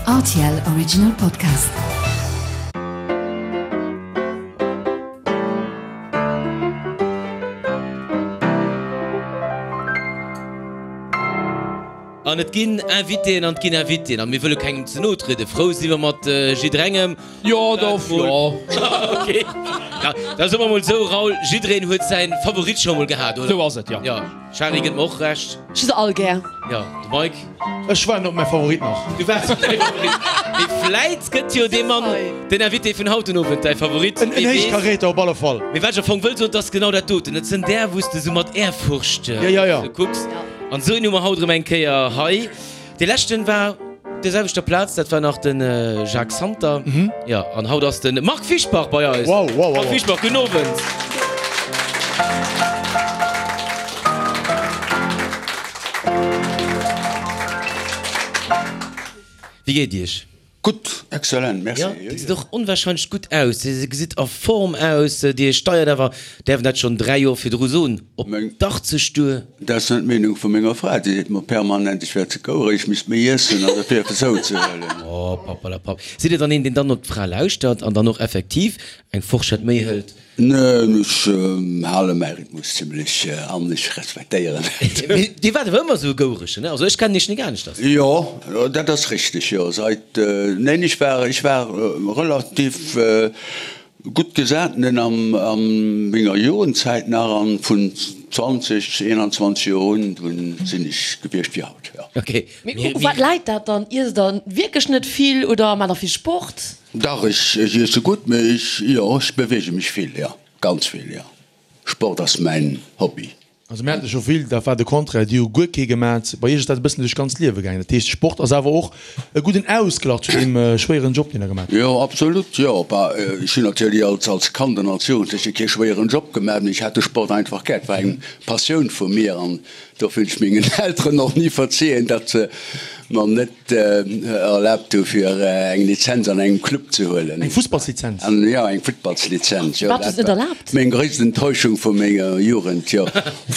Rtl Original Podcast. An et ginn Invitéen an et ginn Invitéen a mir wëlle kengem ze no trieden. Frou si mer mat jidderengem. Jo, dach, jo. Ok. Ja, da soe mer mol esou, Raoul, jiddereen huet säin Favorit scho mol gehat, oder? Sou ass et, jo. Jo, Shari gëtt mer och Recht. Ech hu se all gär. Jo, de Mike? Ech waarden op mäi Favorit nach. Du waards op däi Favorit. Mee vläit gëtt jo dee Mann, den Invité vun haut den Owend, däi Favorit. En Héichkaräter op alle Fall. Mee wat ech am Fong wëll soen, 't ass genau dat doten. Et sënn där, wou s de sou mat Ehrfurcht kucks. An esou een hu mer haut erëm eng Kéier hei. Dee leschten war op der selwechter Plaz, dat war nach de Jacques Santer. Jo, an haut ass de Marc Fischbach bei eis. Wow, wow, wow. Marc Fischbach, gudden Owend. Wéi geet Iech? Gutt, excellent, merci. Jo, Dir gesitt och onwahrscheinlech gutt aus. Dir gesitt a Form aus. Dir steiert awer, däerf een dat schonn 3 Joer virdru soen, op d'80 duer. Dat ass net d'Meenung vu menger Fra. Déi seet mer permanent, ech wär ze gouereg, ech misst méi iessen an dofir eppes zouzehuelen. Oh, Papperlapapp. Sidd Dir dann een, deen dann op d'Fra lauschtert an dann och effektiv eng Forschett méi hëlt? Neen, ech hale mäi Rhythmus zimlech an ech respektéieren et. Mee Dir waart awer ëmmer esou e Goueregen, ne? Also ech kennen Iech nik aneschters. Jo, dat ass richteg, jo. Seit, neen, ech war, ech war relativ gutt gesat, nen, am, a menger Jugendzäit nach an vun 20, 21 Joer un, dunn sinn ech gewiescht wéi haut, jo. Ok. Mee u wat läit dat dann? Iesst Der wierklech net vill oder maacht Der vill Sport? Dach, ech iesse gutt, mee ech, jo, ech beweege mech vill, jo, ganz vill, jo. Sport ass mäin Hobby. Also mir hate scho vill, dat war de Contraire, déi hu guer kee gemat. Bei Iech ass dat e bëssen duerch d'ganzt Liewe gaangen. Dat heescht, Sport ass awer och e gudden Ausglach zu deem schwéieren Job, deen Der gemat hutt. Jo, absolut, jo. Bah, ech hunn natierlech als, als Kand an als Jugendleche kee schwéieren Job gemat, mee ech hat de Sport einfach gär. Et war eng Passioun vu mir an dofir hunn ech mengen Elteren och ni verziehen, datt se mer net erlaabt hu fir eng Lizenz an engem Club ze huelen. Eng Fussballslizenz? Jo, eng Futtballslizenz, jo. Wat ass net erlaabt? Meng gréisst Enttäuschung vu menger Jugend, jo.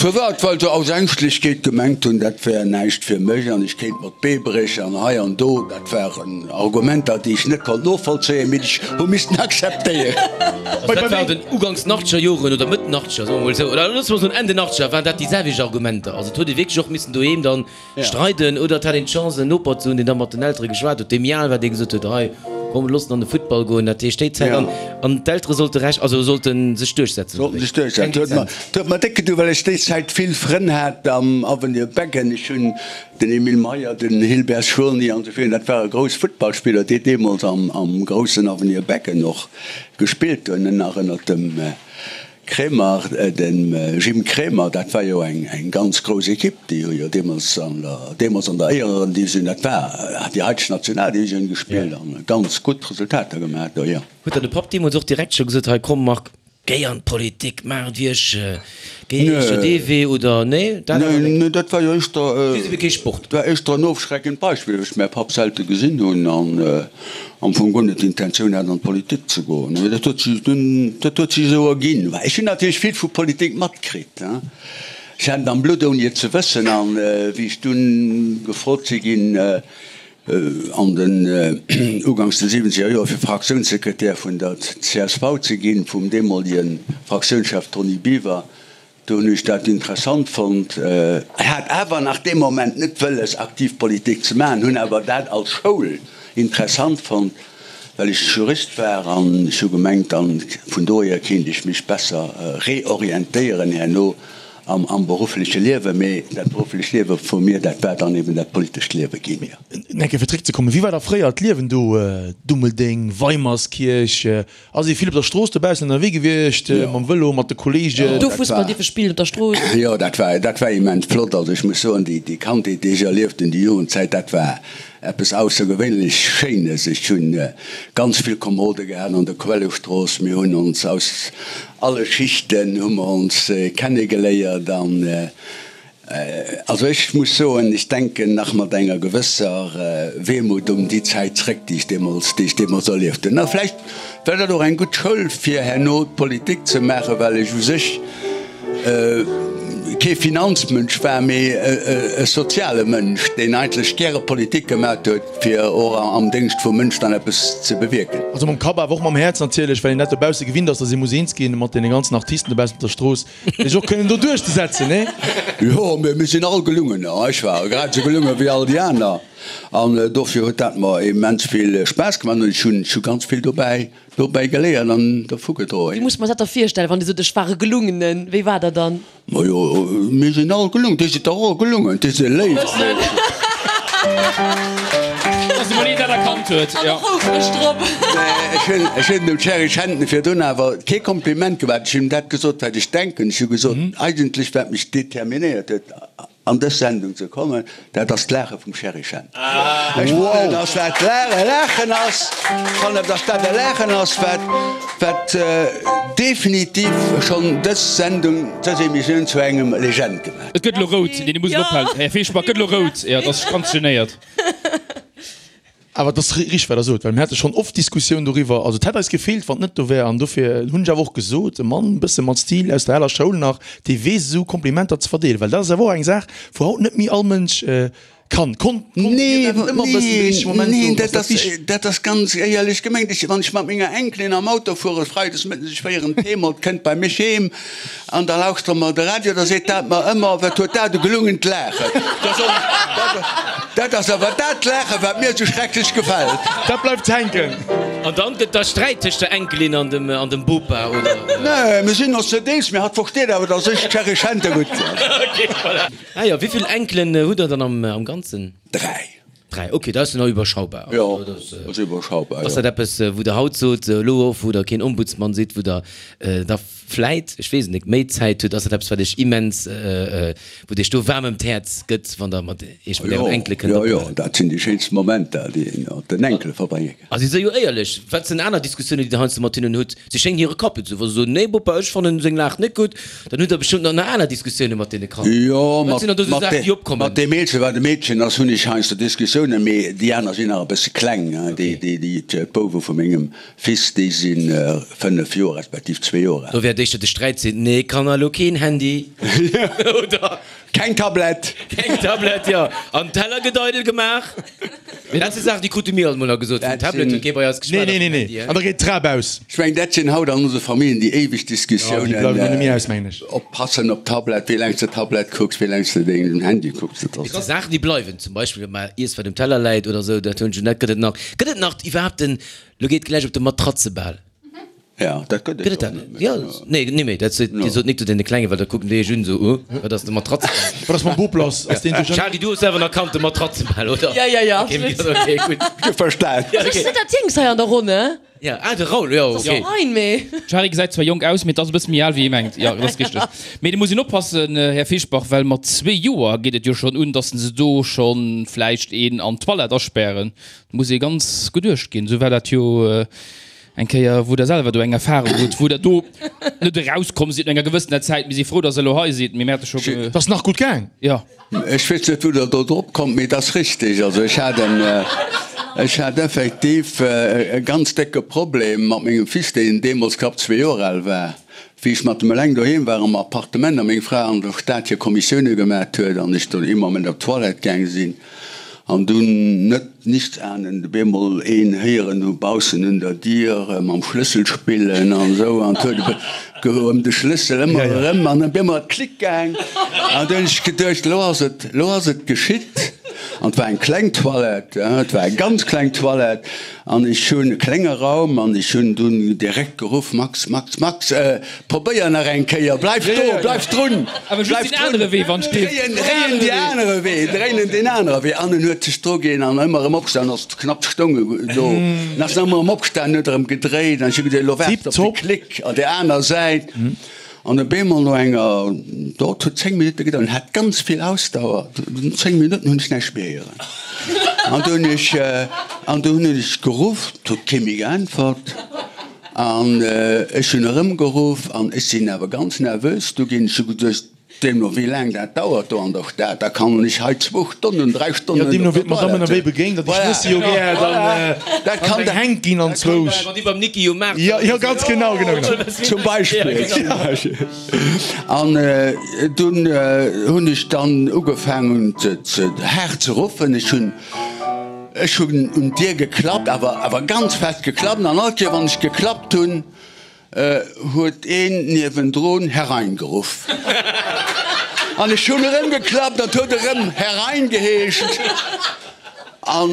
Firwat? Well se aus Ängschtlechkeet gemengt hunn, dat wär näischt fir mech an ech kéint mer d'Bee bréchen an hei an do. Dat waren Argumenter, déi ech net konnt novollzéien, mee déi ech hu missten akzeptéieren. Also dat war den uganks den achtzeger Joren oder Mëtt den achtzeger, soe mer mol esou, oder loosse mer soen Enn den achtzeger, waren dat déi selwecht Argumenter. Also et huet ee wierklech och missen doheem dann Streiden oder et hat een d'Chance en Noper ze hunn, deen da mat den Eltere geschwat huet, dee méi al war, dee gesot huet, hei komm looss en an de Futtball goen. Dat heescht déi Zäit an an d'Eltere sollte Recht, also sollte sech duerchsetzen. Sollten sech duerchsetzen. Huet mer, huet mer déck gedoen, well ech déi Zäit vill Frënn hat am Avenir Beggen. Ech hunn den Emile Meyer, den Hilbert Schurny an esou virun, dat ware grouss Futtballspiller, déi deemools am am groussen Avenir Beggen och gespillt hunn, nach ënnert dem Kremer, dem Jim Kremer, dat war jo eng ganz grouss Ekipp, déi hu jo deemools an der, deemools an der Éierendivisioun, dat war déi haiteg Nationaldivisioun gespillt an ganz gutt Resultater gemaach do, jo. Huet der de Papp deemools och direkt scho gesot, hei komm Marc, géi an d'Politik, maach et wéi ech, géi éischter dee Wee oder nee, dat awer net? Nee, dat war jo éischter, Just ebe kee Sport. dat war éischter en ofschreckend Beispill, well ech mäi Papp selte gesinn hunn an am Fong guer net d'Intentioun hat an d'Politik ze goen. Mee dat huet sech dunn, dat huet sech esou erginn. Well ech hunn natierlech vill vu Politik matkritt, hein. Ech hat et am Blutt ouni et ze wëssen. An wéi ech dunn gefrot si ginn, an den uganks de siwwenzeger Joer fir Fraktiounssekretär vun der csv ze ginn, vum deemolege Fraktiounschef Tony Biwer, Do hunn ech dat interessant fonnt. Hat awer nach dee Moment net wëlles aktiv Politik ze maachen, hunn awer dat als Schoul interessant fonnt, well ech Jurist war an ech hu gemengt, dann vun dohier kéint ech mech besser reorientéieren herno am beruffleche Liewen. Mee dat berufflecht Liewe vu mir, dat war dann eben dat politescht Liewe ginn. Eng Kéier fir zréckzekommen, Wéi war da fréier d'Liewen do, Dummeldeng, Weimerskierch? Ass ee vill op der Strooss dobaussen ënnerwee gewiescht, mam Vëlo, mat de Kolleegen? Do Fussball dierfe spillen op der Strooss. Jo, dat war, dat war immens flott. Also ech muss soen, déi, déi Kandheet, déi ech erlieft hunn, déi Jugendzäit, dat war eppes aussergewéinlech Schéines. Ech hunn ganz vill Komerode gehat an der Quellestrooss. Mir hunn ons aus alle Schichten hu mer ons kennegeléiert an Also ech muss soen, ech denken nach mat enger gewësser Wehmut un déi Zäit zréck, déi ech deemools, déi ech deemools erlieft hunn. A vläicht war dat och eng gutt Schoul fir herno d'Politik ze maachen, well ech u sech. kee Finanzmënsch war, mee e soziale Mënsch, deen eigentlech gäre Politik gemat huet, fir och am Déngscht vum Mënsch dann eppes ze bewierken. Also mam Kapp, awer och mam Häerz natierlech, well een dat dobausse gewinnt ass, datt ee muss eens ginn mat deene ganzen Artisten dobaussen op der Strooss, fir sech och kënnen do duerchzesetzen, nee? Jo, mee mir sinn all gelungener. Ech war grad esou gelunge wéi all déi aner an dofir huet dat mer immens vill Spaass gemaach an ech hunn ganz vill dobäi Dobäi geléiert an dervu gedroen. Wéi muss mer dat da virstellen, wann Dir sot, ech war e Gelungenen? Wéi war der dann? Majo, mir sinn all gelungen. Dir sidd dach och e Gelungen, Dir sidd e léift Meedchen. Dass emol een dat erkannt huet, jo. An och houfreg drop. Nee, ech hunn dem Thierry Schenten virdrun awer kee Kompliment gemaach. Ech hunn him dat gesot, wat ech denken. Ech hu gesot, eigentlech wat mech determinéiert huet, an dës Sendung ze kommen, dat ass d'Laache vum Sherry Shen. Ech fannen, dass dat e Laachen ass, fannen, dass dat e Laachen ass, wat, wat definitiv schonn dës Sendung, dës Emissioun zu engem Legend gemaach huet. Et gëtt elo rout, nee, dir musst elo ophalen, Här Fischbach, et gëtt elo rout, jo, et ass ganz genéiert. Awer et ass richteg, wat Der sot, well mir hate schonn oft Diskussioun doriwwer. Also et hätt eis gefeelt, wann et net do wär. An dofir hunn ech awer och gesot, e Mann e bësse mat Stil aus der aler Schoul nach, dee weess esou Komplimenter ze verdeelen. Well dat ass awer och eng Saach, wou haut net méi all Mënsch kann. Konnt, konnt Dir dat net ëmmer e bëssen de richtege Moment soen? Neen, dat ass, dat ass ganz éierlech gemengt. Ech, wann ech mat menger Enkelin am Auto fuere freides mëttes, ech féieren d'Heem, et kënnt bei mech heem, An da lauschtere mer de Radio, da seet dat mer ëmmer, Wat huet dat e gelungent Laachen! Da soen ech, Dat ass awer dat Laachen, wat mir esou schrecklech gefält. Dat bleift hänken. An dann gëtt da Sträit tëscht der Enkelin an dem an dem Bopa, oder? Nee, mir sinn ons net eens, mee hatt versteet awer, dass ech d'Sherry Schente gutt fannen. Ok, voilà. Ah jo, wéi vill Enkelen hutt Der dann am Ganzen? Dräi. 3, ok, dat ass jo nach iwwerschaubar. Jo, dat ass iwwerschaubar, jo. Ass dat eppes, wou Der haut sot, elo och, wou Der keen Ombudsmann sidd, wou Der da vläit, ech weess et net, méi Zäit hutt, ass dat eppes, wat Iech immens, wou et Iech do waarm ëm d'Häerz gëtt, wann Der mat Iech mat Ären Enkele kënnt Jo, jo, dat sinn déi schéinst Momenter, déi een mat den Enkele verbrénge kann. A si si jo éierlech. Wat sinn aner Diskussiounen, déi Der heiansdo mat hinnen hutt? Si schéngen hire Kapp ze hunn. Wa se soen, Nee, Bopa, ech fannen seng Laach net gutt, dann hutt Der bestëmmt nach nach aner Diskussioune mat deene Kanner. Jo, Wat sinn dann do sou mat, Saachen, déi opkommen? mat deem Eelste, wat e Meedchen ass, hunn ech heiansdo Diskussiounen, mee déi aner sinn nach e bësse kleng. Déi, déi, déi, d'Bouwe vu mengem Fils, déi si 5 Joer respektiv zwee Joer al. Do wäert éischter de Sträit sinn, Nee, Kanner, elo keen Handy, oder? Keng Tablett! Keng Tablett, jo. An Teller gëtt eidel gemaach. Dat si Saachen, déi krute mir alt mol nach gesot. Vum Tablet huet kee bei eis geschwat. Nee, nee, nee, nee. An da geet d'Trap aus. Ech mengen, dat sinn haut an onse Familljen déi éiweg Diskussiounen. Jo, déi bleiwen och net méi aus, mengen ech. Oppassen op d'Tablett, wéi laang s de Tablett kucks, wéi laang s de deng Handy kucks. Dat ass. Et si Saachen, déi bleiwen. Zum Beispill, wa mar iess, wat um Teller läit oder esou. Dat hunn ech net. Gëtt et nach, gëtt et nach iwwerhaapt den, lo geet gläich op de Matratzebal. Ja, dat gëtt et jo net méi. Ja, nee, nee méi. Dat sot, Dir sot nik zu deene Klengen, well da kucken déi iech un esou, uh, wat ass de Matratzebal? Wat ass mam Bop lass? Ass deen duerch. Charly, du hues selwer nach kannt, de Matratzebal, oder? Ja, ja, ja, absolut. Okay, gutt. Ech hu verstan. Also ech sinn dat Jéngst hei an der Ronn, ne? Ja, ah, de Raoul, jo, Das ass okay. fein, mee. D'Shari gesäit zwar jonk aus, mee 't ass e bësse méi al wéi ee mengt. Jo, dat ass richteg. Mee do muss een oppassen, Här Fischbach, well mat zwee Joer geet et jo schonn un, dass se do schonn vläicht een an d'Toilette aspären. Do muss ee ganz geduecht ginn. Esou war dat jo Eng Kéier, wou Der selwer do eng Erfahrung hutt, wou Der do net erauskomm sidd no enger gewëssener Zäit. Mir si frou, dass Der elo hei sidd, mee mir hate scho ge. Et ass nach gutt gaang. Jo. Ech weess net, wou Der do drop kommt, mee et ass richtig. Also ech hat en, ech hat effektiv e ganz décke Problem mat mengem Fils, deen deemools knapp zwee Joer al war, wéi ech mat em eleng doheem war am Appartement a meng Fra an der Stad hir Kommissioune gemat huet an ech do ee Moment op d'Toilette gaang sinn. An dunn, net nichtsahnend, op eemol een héieren hu baussen un der Dier mam Schlëssel spillen an esou, an 't huet e ëm de Schlëssel ëmmer erëm, an op eemol ass et Klick gaang, an dunn hunn ech geduecht, elo ass et, elo ass et geschitt. An 't war eng kleng Toilette, et war eng ganz kleng Toilette, an ech hunn, e klenge Raum, an ech hunn dunn direkt geruff, Max, Max, Max, Probéier nach eng Kéier, bleif do, bleif drun, bleif drun, dréien déi anere Wee, dréinen deen anere Wee. An en huet sech druginn an ëmmer erëm opgestan, ass knapp stoung e do, an ass ëmmer erëm opgestan, huet erëm gedréit an ech hu geduecht, elo waart op de Klick an där aner Säit. An op eemol no enger, dort huet 10 Minutte gedauert, en hat ganz vill Ausdauer, no 10 Minutten hunn ech näischt méi héieren. An du hunn ech, an du hunn ech geruff, et huet kee méi geäntwert. An ech hunn erëmgeruff an ech sinn awer ganz nervös du ginn. Ech hu geduecht. Deemno wéi laang dat dauert do an der Stad, da kann ech hei zwou Stonnen, 3 Stonnen. Jo, deemno wéi d'Madame ënnerwee begéint, datt ech wësse jo gär dann eng hänkt ginn anzwousch. Wann déi beim Niki um Maart. Jo, jo, ganz genau, genau, genau. Zum Beispill, zum Beispill. An dunn hunn ech dann ugefaangen ze haart ze ruffen. Ech hunn, ech hunn un d'Dier geklappt, awer, awer ganz fest geklappt. An all Kéier wann ech geklappt hunn, Huet een niewendrun Herein geruff. An ech hunn erëm geklappt an et huet erëm Herein geheescht. An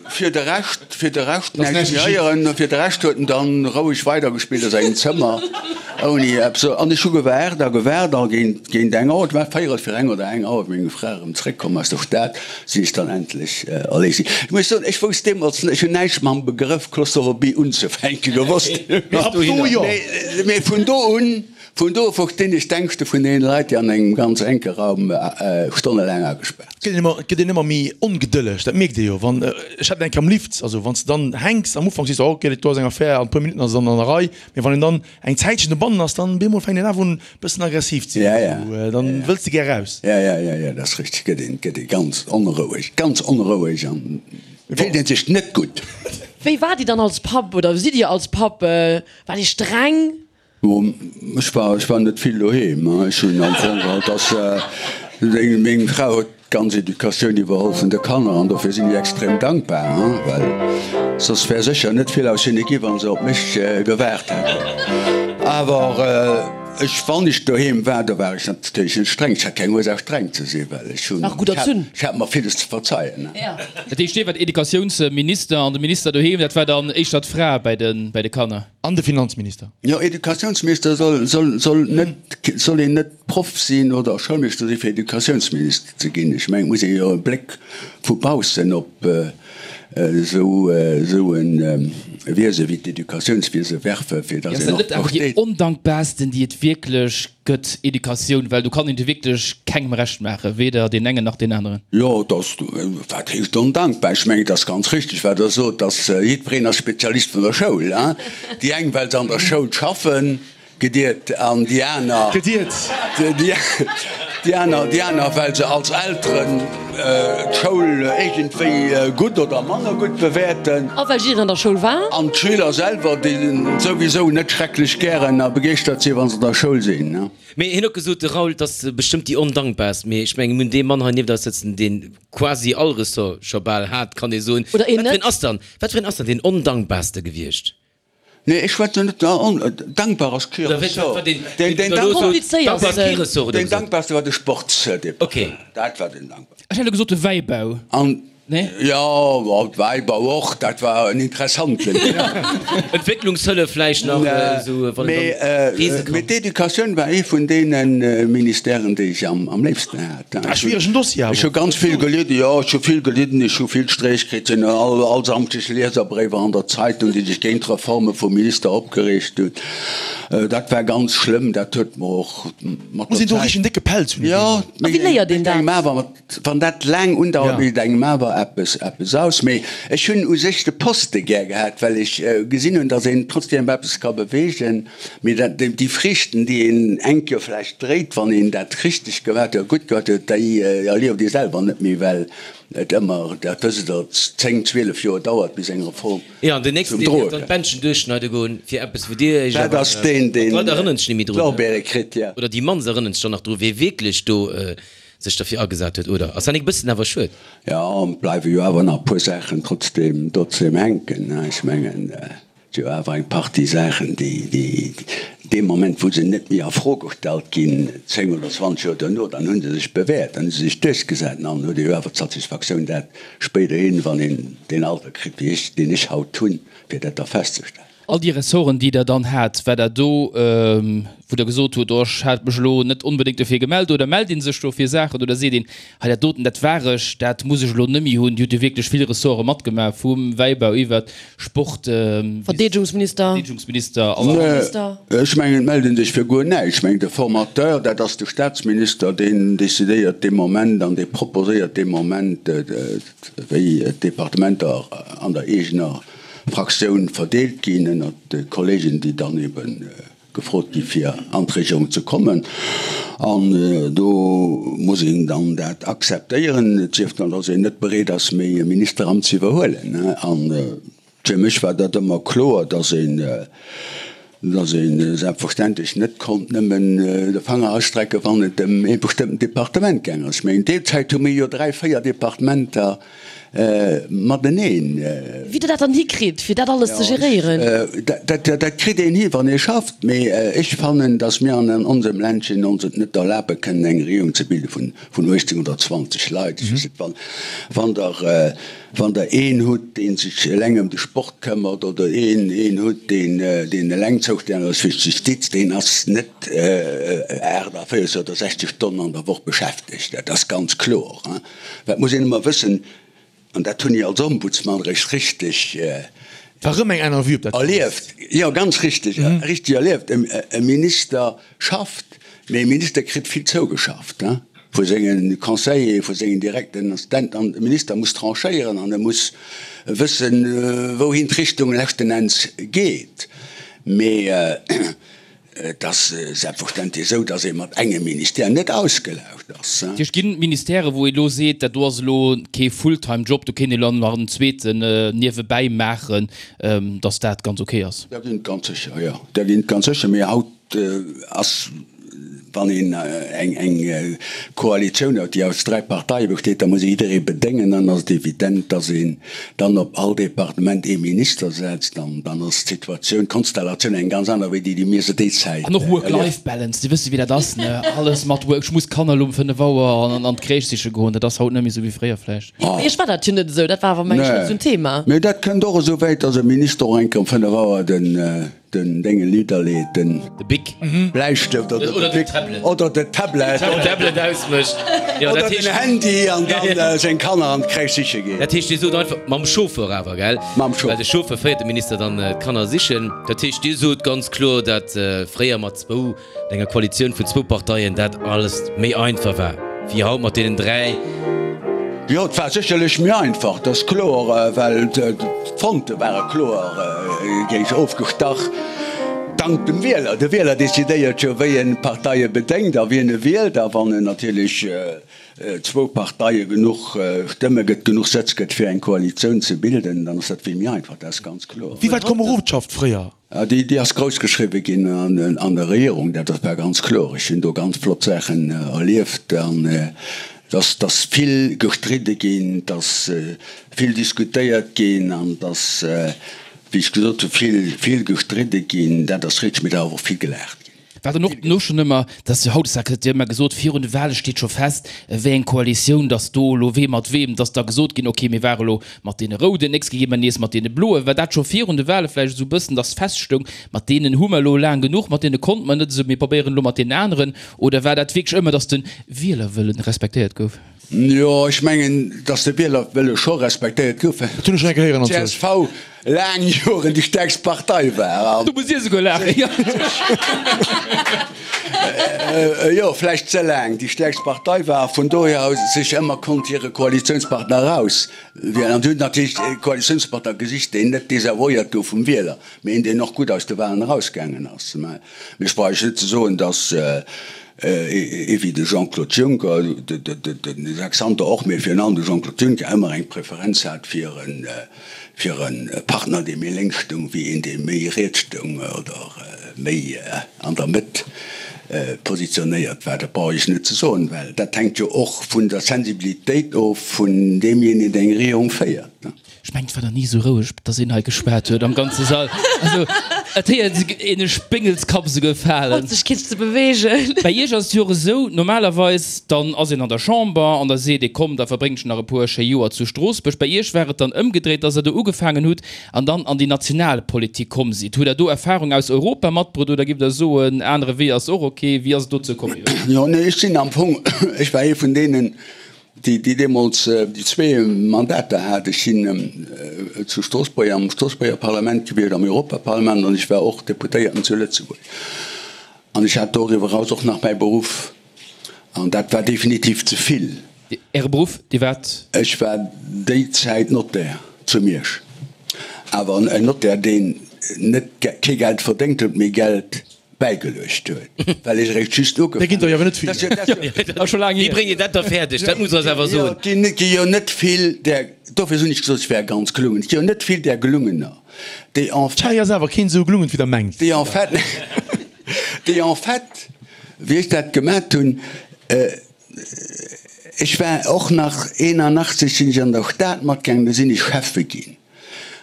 fir de Rescht, fir de Rescht näischt méi héieren. Fir de Rescht huet en dann roueg weidergespillt a sengem Zëmmer ouni eppes. An ech hu gewaart a gewaart a géint, géint eng Auer, et war véierel fir eng oder eng Auer, wéi meng Fra erëm zréckkomm aus der Stad, sinn ech dann endlech erléist ginn. Ech muss soen, ech wousst deemools net, ech hunn näischt mam Begrëff Claustrophobie unzefänke gewosst. Mee vun do un, vun do u verstinn ech d'Ängschte vun deene Leit, déi an engem ganz enke Raum stonnelaang agespaart sinn. Et gëtt een ëmmer méi ongedëlleg, dat mierkt ee jo. Wann, ech hat et eng Kéier am Lift, also wann s de dann hänks, am Ufank sees de, oh ok, dat do ass eng Affär, an e puer Minutten ass et dann an der Rei. Mee wann een dann eng Zäitchen dobannen ass, dann bemol fänkt een awer un bëssen aggressiv ze ginn, esou, dann wëlls de gär raus. Ja, ja, ja, ja, dat ass richteg, gëtt een, gëtt ee ganz onroueg, ganz onroueg an fillt een sech net gutt. Wéi waart Dir dann als Papp oder sidd Dir als Papp? Waart Dir streng? Bon, ech war, ech war net vill doheem, ech hunn am Fong geholl, dass meng Fra huet D'ganz Educatioun iwwerholl vun de Kanner an dofir sinn ech extrem dankbar, well soss wär sécher net vill aus hinne gi wa se op mech gewaart hätten. Awer ech, wann ech doheem war, do war ech natierlech net streng. Ech hat keng Ursaach streng ze sinn, well ech hunn, ech hat mer villes ze verzeien. Dat heescht, Dir waart Educatiounsminister an de Minister doheem, dat war dann éischter d'Fra bäi de Kanner? An de Finanzminister. Jo, Educatiounsminister soll, soll, soll net, soll een net Proff sinn oder Schoulmeeschter sinn, fir Educatiounsminister ze ginn. Ech mengen, et muss ee jo e Bléck vu baussen op esou, esou e Wiese wéi d'Educatiounswiese werfen, fir datt een och versteet. Ass dat net awer déi ondankbarsten, déi et wierklech gëtt, Educatioun? Well do kann een et jo wierklech kengem Recht maachen, weder deen engen nach deen aneren. Jo, et ass, wat heescht ondankbar? Ech mengen, et ass ganz richtig, wat Der sot, dass jiddwereen ass Spezialist vun der Schoul. Déi eng, well se an der Schoul schaffen, Gediert an déi aner, Gediert. Déi aner, déi aner, well se als Elteren d'Schoul iergendwéi gutt oder manner gutt bewäerten. A well jiddereen an der Schoul war. An d'Schüler selwer, déi souwisou net schrecklech gären a begeeschtert sinn, wa se an der Schoul sinn. Mee hien huet gesot, de Raoul, 't ass bestëmmt déi ondankbarst. Mee ech mengen, mir hunn dee Mann hei nieft eis sëtzen, dee quasi all Ressort scho bal hat, kann ee soen. Oder een Wat fir net. een ass dann, wat fir een ass dann deen ondankbarste gewiescht? Nee, ech schwätzen net dankbar ass kee Ressort. Deen dankbarste war de Sportsdepartement. Dat war deen dankbarsten. Ech hätt elo gesot de Wäibau. Nee? Jo, Wäibau och, dat war en interessanten. Entwécklungshëllef vläicht nach esou, wann een dann reese kann. Mee d'Educatioun war ee vun deene Ministèren, déi ech am léifsten hat. Ah, schwieregen Dossier awer. Ech hu ganz vill gelidden, jo, ech hu vill gelidden, ech hu vill Streech kritt, sinn all, all Samschdeg Lieserbréiwer an der Zeitung, déi sech géint d'Reforme vum Minister opgereegt hunn. Dat war ganz schlëmm, dat huet mer och mat Muss der een do Zäit. richteg en décke Pelz hunn, Jo, A wéi léiert een mécht engem dat? awer mat, wann dat laang undauert, Ja. mécht engem awer eppes, eppes aus. Mee ech hunn u sech de Poste gär gehat, well ech gesinn hunn, datt een trotzdem eppes ka beweegen. Mee dat, déi Friichten, déi een eng Kéier vläicht dréit, wann een dat richteg gemaat huet, gutt gemaat huet, déi erlieft ee selwer net méi, well et ëmmer, dat wësst Der, 10, 12 Joer dauert, bis eng Reform Jo, an den zum nächsten, deen Droe dierf dann kënnt. d'Bändchen duerchschneide goen, fir eppes, wou Dir Iech Dat awer, ass deen, deen d'Leit erënneren sech net méi drun, d'Lorbeere kritt, jo. oder déi mannst erënneren sech dann nach dru, wee wierklech do sech derfir agesat huet, oder? Ass dat nik e bëssen awer schued? Jo, et bleiwe jo awer nach e puer Saachen trotzdem, trotzdem hänken, ech mengen. Et si jo awer eng Partie Saachen, déi dee Moment, wou se net méi a Fro gestallt ginn, 10 oder 20 Joer duerno, dann hu se sech bewäert, dann hu se sech duerchgesat. An dann huet ee jo awer d'Satisfaktioun, dat spéiderhin, wann een deen Alter kritt wéi ech, deen ech haut hunn, fir dat da festzestellen. All déi Ressorten, déi Der dann hat, war dat do, wou Der gesot hutt, oh, ech hat mech elo net onbedéngt dofir gemellt, oder mellt ee sech do fir Saachen oder seet een, hei dat doten, dat war ech, dat muss ech elo net méi hunn? Dir hutt jo wierklech vill Ressorte matgemaach, vum Wäibau iwwert Sport, Verdeedegungsminister, Verdeedegungsminister, Minister. Ech mengen, et mellt ee sech fir guer näischt. Ech mengen, de Formateur, dat ass de Staatsminister, deen decidéiert dee Moment an dee proposéiert dee Moment, wéi d'Departementer an der eegener Fraktioun verdeelt ginn ënnert de Kollegen, déi dann ebe. gefrot gi fir an d'Regierung ze kommen. An do muss een dann dat akzeptéieren, et sief dann, datt een net bereet ass méi e Ministeramt ze iwwerhuelen. An fir mech war dat ëmmer kloer, datt een, datt ee selbstverständlech net konnt nëmmen de Fanger ausstrecken, wann et ëm ee bestëmmten Departement gaang ass. Mä in deer Zäit hu mir jo dräi, véier Departementer mateneen. Wéi Der dat dann hikritt, fir dat alles ze geréieren? Dat kritt een hi, wann ee schafft. Mee ech fannen, datt mir an onsem Ländchen ons et net erlabe kënnen, eng Regierung ze bilde vun 18 oder 20 Leit. Ech weess net, wann Der Wann Der een hutt, dee sech eleng ëm de Sport këmmert, oder een een hutt, deen deen eleng zoustänneg ass fir d'Justiz, deen ass net 48 oder 60 Stonnen an der Woch beschäftegt. Dat ass ganz kloer. Dat muss een ëmmer wëssen, an dat hunn ech als Ombudsman eréischt richteg War erëm eng aner Vue op dat Ganzt. erlieft. Jo, ganz richteg, richteg erlieft. E Minister schafft, mee e Minister kritt vill zougeschafft. Vu senge Conseillere, vu sengen direkten Assistenten an de Minister muss tranchéieren an e muss wëssen, wouhin d'Richtung leschten Enns geet. Mee et ass selbstverständlech esou, datt ee mat engem Ministère net ausgelaugt ass. Dat heescht, ginn et Ministèrë wou ee elo seet, dat do ass elo kee Fulltime-Job, do kéint ee elo nach en zweeten niewebäi maachen, datt dat ganz ok ass? Där ginn et ganz sécher, jo, där ginn et ganz sécher. Mee haut ass, wann een eng Koalitioun huet, déi aus dräi Parteie besteet, da muss ee jidderee bedéngen. Dann ass et evident, datt een dann op all Departement ee Minister setzt. An dann ass d'Situatioun, d'Konstellatioun eng ganz aner wéi déi, déi mir se déi Zäit An och Work-Life-Balance, Dir wësst jo wéi dat ass, ne? Alles mat Work, ech muss d'Kanner elo um 5 Auer an d'Crèche siche goen, dat ass haut net méi esou wéi fréier vläicht. Bei Iech war dat jo net esou, dat war awer meng ech net esou en Thema. Mee dat kënnt och esou wäit, datt e Minister och eng Kéier um 5 Auer den Den Dénge nidderleet, den. De Bic. Bläistëft oder de Bic oder de Tablet. Den Tablet ausmécht. Oder den Handy an dann seng Kanner an d'Crèche siche geet. Dat heescht, Dir sot einfach, mam Chauffeur awer, gell? Mam Chauffeur. Well de Chauffeur féiert de Minister dann d'Kanner sichen. Dat heescht, Dir sot ganz kloer, dat fréier mat zwou An enger Koalitioun vun zwou Parteien dat alles méi einfach war wéi haut mat deenen 3. Jo, et war sécherlech méi einfach, dat ass kloer, well d'Fronte ware kloer géint ofgestach, dank dem Wieler. De Wieler decidéiert jo, wéi en d'Parteie bedéngt a wien e wielt. A wann en natierlech zwou Parteie genuch Stëmme gëtt, genuch Sëtz gëtt, fir eng Koalitioun ze bilden, dann ass dat vill méi einfach, dat ass ganz kloer. Wéi war d'Komerodschaft fréier? Déi ass grouss geschriwwe ginn an der Regierung, dat war ganz kloer. Ech hunn do ganz flott Saachen erlieft an dass dass vill gestridde ginn, dass vill diskutéiert ginn an dass, wéi ech gesot hunn, vill, vill gestridde ginn, dat ass richteg, mee et ass awer och vill gelaacht ginn. War dann och dono schonn ëmmer, dass jo hautdesdaags gëtt jo ëmmer gesot, virun de Wahle steet scho fest, wéi eng Koalitioun, dass do elo wee mat weem, dass da gesot ginn, okay, mir ware elo mat deene Rouden, nächst Kéier gi mer nees mat deene Bloen. War dat scho virun de Wahle vläicht esou e bëssen, dass feststoung, mat deenen hu mer elo laang genuch, mat deene konnte mer net esou, mir probéieren elo mat deenen aneren? Oder war dat wierklech ëmmer, dass de Wielerwëllen respektéiert gouf? Jo, ech mengen, dass de Wielerwëlle scho respektéiert gouf, well Dat hunn ech schon eng Kéier héieren anzwousch. d'CSV laang Joren déi stäerkst Partei war. Do musst Dir esouguer laachen, jo. Jo, vläicht ze laang déi stäerkst Partei war a vun dohier aus sech ëmmer konnt hire Koalitiounspartner erauswielen. An si hunn natierlech e Koalitiounspartner gesicht, deen net desavouéiert gouf vum Wieler, mee een, deen och gutt aus de Walen erausgaangen ass. Mä ech brauch Iech net ze soen, dass Ee wéi de Jean-Claude Juncker, de Jacques Santer och, mee virun allem de Jean-Claude Juncker ëmmer eng Preferenz hat fir e Partner, dee méi lénks stoung, wéi een, dee méi riets stoung oder méi an der Mëtt positionéiert war. Dat brauch ech net ze soen, well dat hänkt jo och vun der Sensibilitéit of vun deemjéinegen, deen eng Regierung féiert. Ech mengen et war nach ni esou roueg, dass een hei geschwat huet am ganze Sall. Also et héiert een e Spéngelskapp esouguer falen. Haut sech keen ze beweegen. Bei iech ass et jo och esou, normalerweis dann ass een an der Chamber an da seet ee komm da verbréngt ech nach e puer schéi Joer zu Stroossbuerg. Bei iech war et dann ëmgedréit, dass der do ugefaangen hutt an dann an déi national Politik komm sidd. Hutt der do Erfahrung aus Europa matbrutt oder giff der soen, anere Wee ass och ok? Wéi ass et dozou komm iwwerhaapt? Jo, nee, ech sinn am Fong, ech war ee vun deenen, déi deemools déi zwee Mandater hat. Ech sinn zu Stroossbuerg am Stroossbuerger Parlament gewiescht, am Europaparlament an ech war och Deputéierten zu Lëtzebuerg. An ech hat doriwwer eraus och nach mäi Beruff an dat war definitiv ze vill. Äre Beruff, Dir waart? Ech war déi Zäit Notaire zu Miersch, awer en Notaire, deen net kee Geld verdéngt huet, mee Geld. Bäigeluecht huet, well ech eréischt just ugefaangen. Där ginn der jo awer net vill. Wéi bréngt Dir dat da fäerdeg? Dat musst Der eis awer soen. Et gi jo net vill där, dofir hunn ech gesot, ech wär ganz gelungen, et gi jo net vill där Gelungener, déi en fait. Hei ass awer keen esou gelungen, wéi Der mengt. Déi en fait, déi en fait, wéi ech dat gemat hunn, ech war och nach 81 sinn ech an der Stad matgaangen, do sinn ech Schäffe ginn.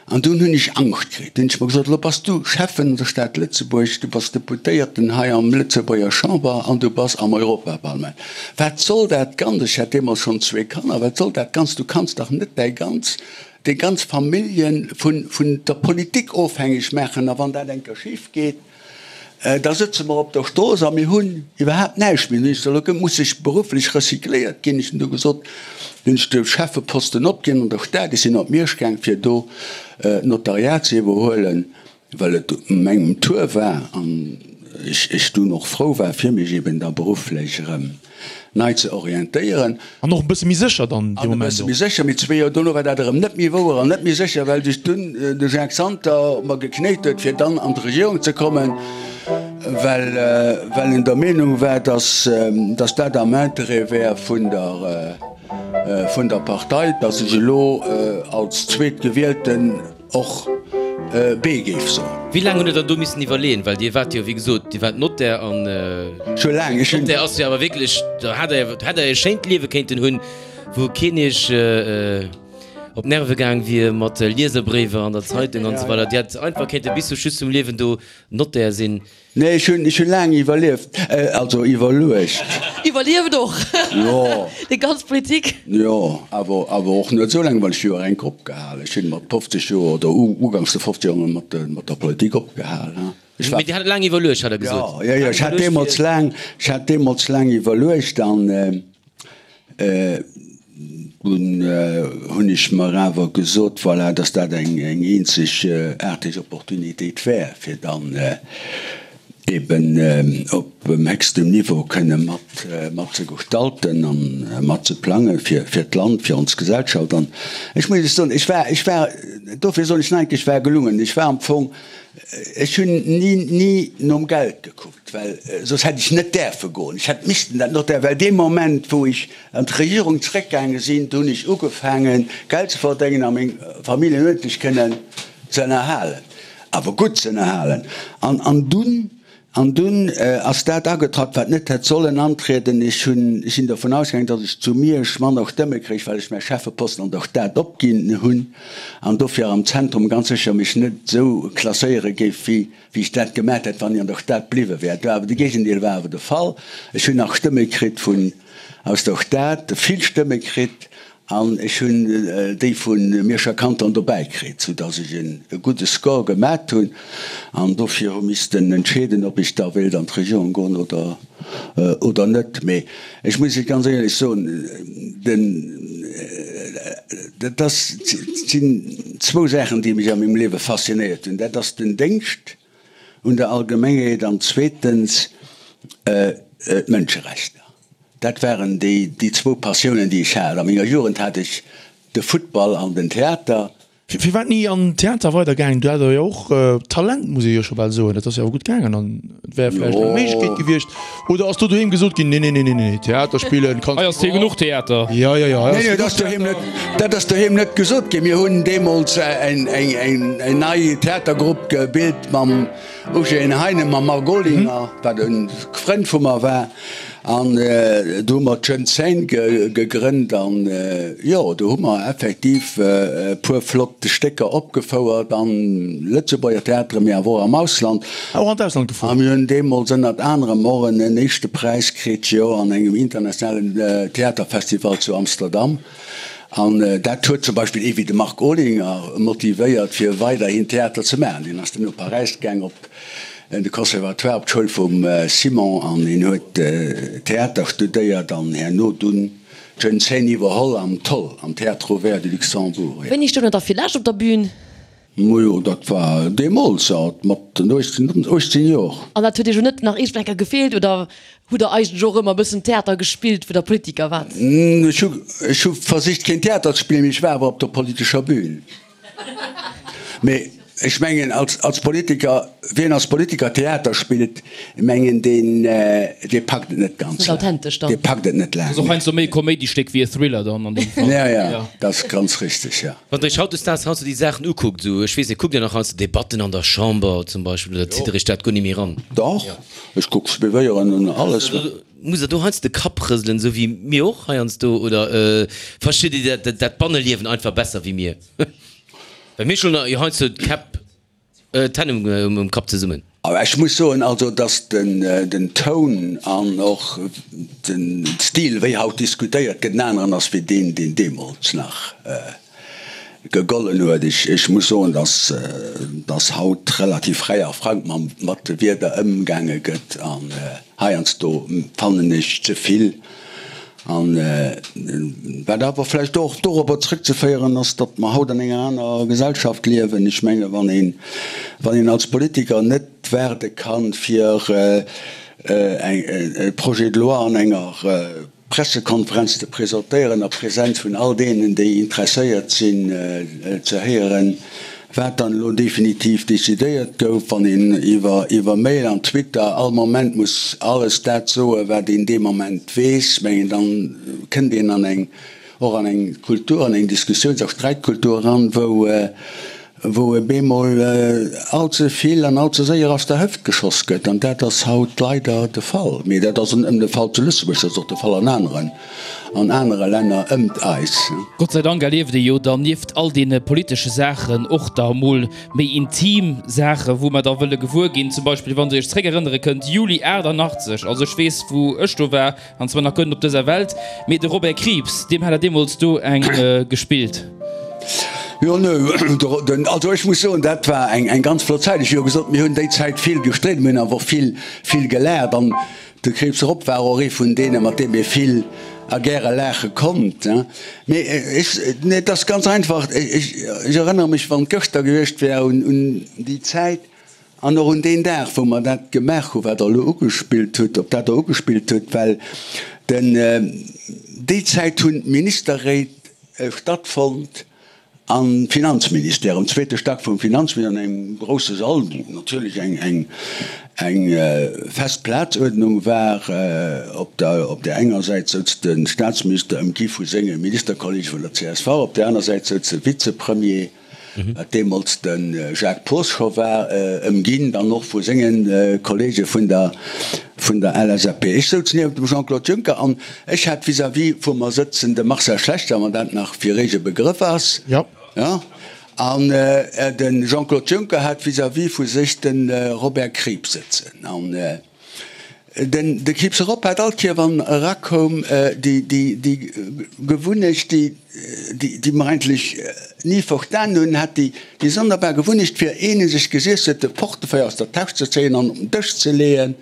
An dunn hunn ech Angscht kritt. Dunn hunn ech mer gesot, elo bass du Schäffen an der Stad Lëtzebuerg, du bass Deputéierten hei am Lëtzebuerger Chamber an du bass am Europaparlament. Wat soll dat Ganzt? Ech hat deemools schonn zwee Kanner. Wat soll dat Ganzt? Du kanns dach net däi ganz, deng ganz Famillje vun, vun der Politik ofhängeg maachen. A wann dat eng Kéier schif geet, Da sëtze mer op der Strooss a mir hunn iwwerhaapt näischt méi. Hunn ech gesot, elo muss ech berufflech recycléiert ginn. Ech hunn du gesot, hunn ech de Schäffeposten opginn an der Stad. Ech sinn op Miersch gaang, fir do d'Notariat ze iwwerhuelen, well et mengem Tour war an ech dunn och frou war, fir mech eben da berufflech erëm nei ze orientéieren. An och e bësse méi sécher dann dee An e Moment bësse och. méi sécher. Mee zwee Joer dono war dat erëm net méi wouer an net méi sécher, well sech dunn de Jacques Santer mer geknéit huet, fir dann an d'Regierung ze kommen, well, well en der Meenung war, dass, dass dat am Interêt wär vun der, vun der Partei, dass ech elo als Zweetgewielten, Och B géif soen. Wéi laang hutt Der dann do missen iwwerleeën? Well Dir waart jo, wéi gesot, Dir waart Notaire an Scho laang. Ech hunn. Notaire ass jo awer wierklech, do hat Der, hätt Der e schéint Liewe kéinten hunn, wou keen Iech op d'Nerve gaang wier mat Lieserbréiwer an der Zeitung an esou weider. Dir hätt einfach kéinte bis zum Schluss vum Liewen do Notaire sinn. Nee, ech hunn, ech hunn laang iwwerlieft, also iwwerluecht. Iwwerlieft och Jo. déi ganz Politik? Jo, awer, awer och net esou laang, well ech hu jo enk opgehal. Ech hunn mat 50 Joer oder uganks de 50 Joer mat de, mat der Politik opgehal, hein. Ech war. Mee Dir hat laang iwwerluecht, hat Der gesot. Jo, jo, jo, ech hat deemools laang, ech hat deemools laang iwwerluecht an, Dunn hunn ech mer awer gesot, voilà, dass dat eng eenzegaarteg Opportunitéit wär, fir dann eben op héchstem Niveau kënne mat mat ze gestalten a mat ze plange fir d'Land, fir ons Gesellschaft. An ech muss Iech soen, ech war, ech war, dofir soen ech nach eng Kéier, ech war gelungen. Ech war am Fong, ech hunn ni, ni nom Geld gekuckt. Well soss hätt ech net däerfe goen. Ech hätt missten dat Notaire, well dee Moment, wou ech an d'Regierung zréckgaange sinn, do hunn ech ugefaangen, Geld ze verdéngen a meng Familljen uerdentlech kënnen ze ënnerhalen, awer gutt ze ënnerhalen. An, an dunn, an dunn ass dat agetratt, wat net hätt sollen antrieden. Ech hunn, ech sinn dervun ausgaangen, datt ech zu Miersch manner Stëmme kréich, well ech mäi Schäffeposten an der Stad opginn hunn an dofir am Zentrum ganz sécher mech net esou klasséiere géif wéi wéi ech dat gemat hätt, wann ech an der Stad bliwwe wär. Et war awer, de Géigendeel war awer de Fall. Ech hunn nach Stëmme kritt vun, aus der Stad, vill Stëmme kritt, an ech hunn déi vu Mierscher Kanton dobäi kritt, soudass ech e gudde Score gemat hunn an dofir hu missten entscheeden, ob ech da wéilt an d'Regierung goen oder, oder net. Mee ech muss Iech ganz éierlech soen, den, dat ass, et sinn zwou Saachen, déi mech a mengem Liewe faszinéiert hunn. Dat ass den Déngscht un der Allgemengheet an zweetens d'Mënscherechter. Dat waren déi, déi zwou Passiounen, déi ech hat. A menger Jugend hat ech de Futtball an den Theater. Firwat ni an den Theater weider gaangen? Du hat der jo och Talent, muss ee jo scho bal soen. Dat ass jo awer gutt gaangen an et wär vläicht eng Méiglechkeet gewiescht. Oder ass do doheem gesot ginn, nee, nee, nee, nee, nee, Theater spillen kanns Hei ass hee genuch Theater. Jo, jo, jo, hei Nee, ass nee, dat ass doheem net, dat ass doheem net gesot ginn. Mir hunn deemools eng, eng, eng nei Theatergrupp gebilt mam Eugène Heinen, mam Marc Olinger, wat e Frënd vu mer war. An do hu mer d'Jeune Scène gegrënnt an jo, do hu mer effektiv e puer flott Stécker opgefouert an Lëtzebuerger Theateren, mee awer och am Ausland. Och an d'Ausland gefuer? A mir hunn deemools ënnert anerem och en éischte Präis kritt, jo, an engem internationalen Theaterfestival zu Amsterdam. An dat huet zum Beispill ee wéi de Marc Olinger motivéiert, fir weiderhin Theater ze maachen. Deen ass dunn no Paräis gaang op de Conservatoire, op d'Schoul vum Simon an hien huet Theater studéiert an herno dunn d'Jeune Scène iwwerholl am Toll, am Théâtre Ouvert du Luxembourg. Wéini stoung der da fir lescht op der Bühn? Majo, dat war deemools, mat 18 Joer. An dat huet Iech och net nach iergendwann eng Kéier gefeelt oder hutt Der eigentlech och ëmmer e bëssen Theater gespillt, wou Der Politiker waart? Ech hu versicht keen Theater ze spillen, mee ech war awer op der politescher Bühn. Mee. Ech mengen, als Politiker, wien als Politiker Theater spillt, mengen, deen, dee packt et net ganz laang. Dee packt et net laang. Ass och heiansdo méi e Koméidistéck wéi e Thriller dann an deem Fall. Ja, ja, dat ass ganz richteg, ja. Wann Der Iech hautdesdaags heiansdo déi Saachen ukuckt, esou, ech weess net, kuckt Dir nach heiansdo Debatten an der Chamber zum Beispill oder zitt Der Iech dat guer net méi eran? Dach, ech kuck suivéieren an alles. Musst Der do heiansdo de Kapp rëselen, esou wéi mir och heiansdo, oder verstitt Dir dat Banneliewen einfach besser wéi mir? Well mir schloen jo heiansdo d'Käpp, d'Hänn um Kapp zesummen. Awer ech muss soen, also datt den Toun an och den Stil, wéi haut diskutéiert gëtt, en aneren ass wéi deen, deen deemools nach gegollen huet. Ech muss soen, datt haut relativ fräi a frank mat de Wierder ëmgaange gëtt an heiansdo fannen ech ze vill. An wat awer vläicht och dorobber zrëckzeféieren ass, datt mer haut an enger aner Gesellschaft liewen. Ech menge wann een, wann een als Politiker net waarde kann, fir e Projet de loi an enger Pressekonferenz ze presentéieren a Präsenz vun all deenen, déi interesséiert sinn ze héieren, Wat dann elo definitiv decidéiert gouf, wann een iwwer Mail an Twitter all Moment muss alles dat soen, wat een dee Moment weess, mengen, dann kënnt een an eng, och an eng Kultur, an eng Diskussiouns a Sträitkultur eran, wou, wou e bemol all ze vill an all ze séier aus der Hëft geschoss gëtt. An dat ass haut leider de Fall. Mee dat ass net nëmmen de Fall zu Lëtzebuerg, dat ass och de Fall an aneren. An anere Länner ëmt eis. Gott sei Dank erlieft ee jo dann nieft all deene politesche Saachen och da mol méi intim Saachen, wou mer da wëlle gewuer ginn. Zum Beispill, wann Der Iech zréckerënnere kënnt, Juli 88, also ech weess, wou ech do war, an zwar nach guer net op dëser Welt, mee de Robert Krieps, deem hat Der deemools do eng gespillt. Jo, nö, also ech muss soen, dat war eng ganz flott Zäit. Ech hu jo gesot, mir hunn déi Zäit vill gestridden, mir hunn awer och vill, vill gelaacht. An De Krieps Rob war och ee vun deene mat deem ee vill a gäre laache konnt. Mee ech, nee, et ass ganz einfach, ech erënnere mech, wann et gëschter gewiescht wär, un déi Zäit an och un deen Dag, wou mer dat gemaach hu wat Der elo ugespillt hutt, op dat Der ugespillt hutt, well den, déi Zäit hunn d'Ministerréit stattfonnt, Am Finanzministère, am zweete Stack vum Finanzministère, an engem grousse Sall, wou natierlech eng eng fest Plazuerdnung war. Op der op där enger Säit souz de Staatsminister, ëmgi vu senge Ministerkollege vun der csv, op där aner Säit souz de Vizepremier, wat deemools de Jacques Poos scho war, ëmginn dann och vu senge Kollege vun der vun der LSAP. Ech souz niewent dem Jean-Claude Juncker an Ech hat vis-à-vis vu mer sëtzen de Marcel Schlechter, wann dat nach fir Iech e Begrëff ass. Jo. Jo. An de Jean-Claude Juncker hat vis-à-vis vu sech de Robert Krieps sëtzen. An den, de Krieps erop hat all Kéier, wann en erakoum, déi, déi, déi Gewunnecht, déi, déi, déi mer eigentlech ni verstan hunn, hat déi, déi sonderbar Gewunnecht, fir een u sech gesiess huet, de Portefeuille aus der Täsch ze zéien an op den Dësch ze leeën.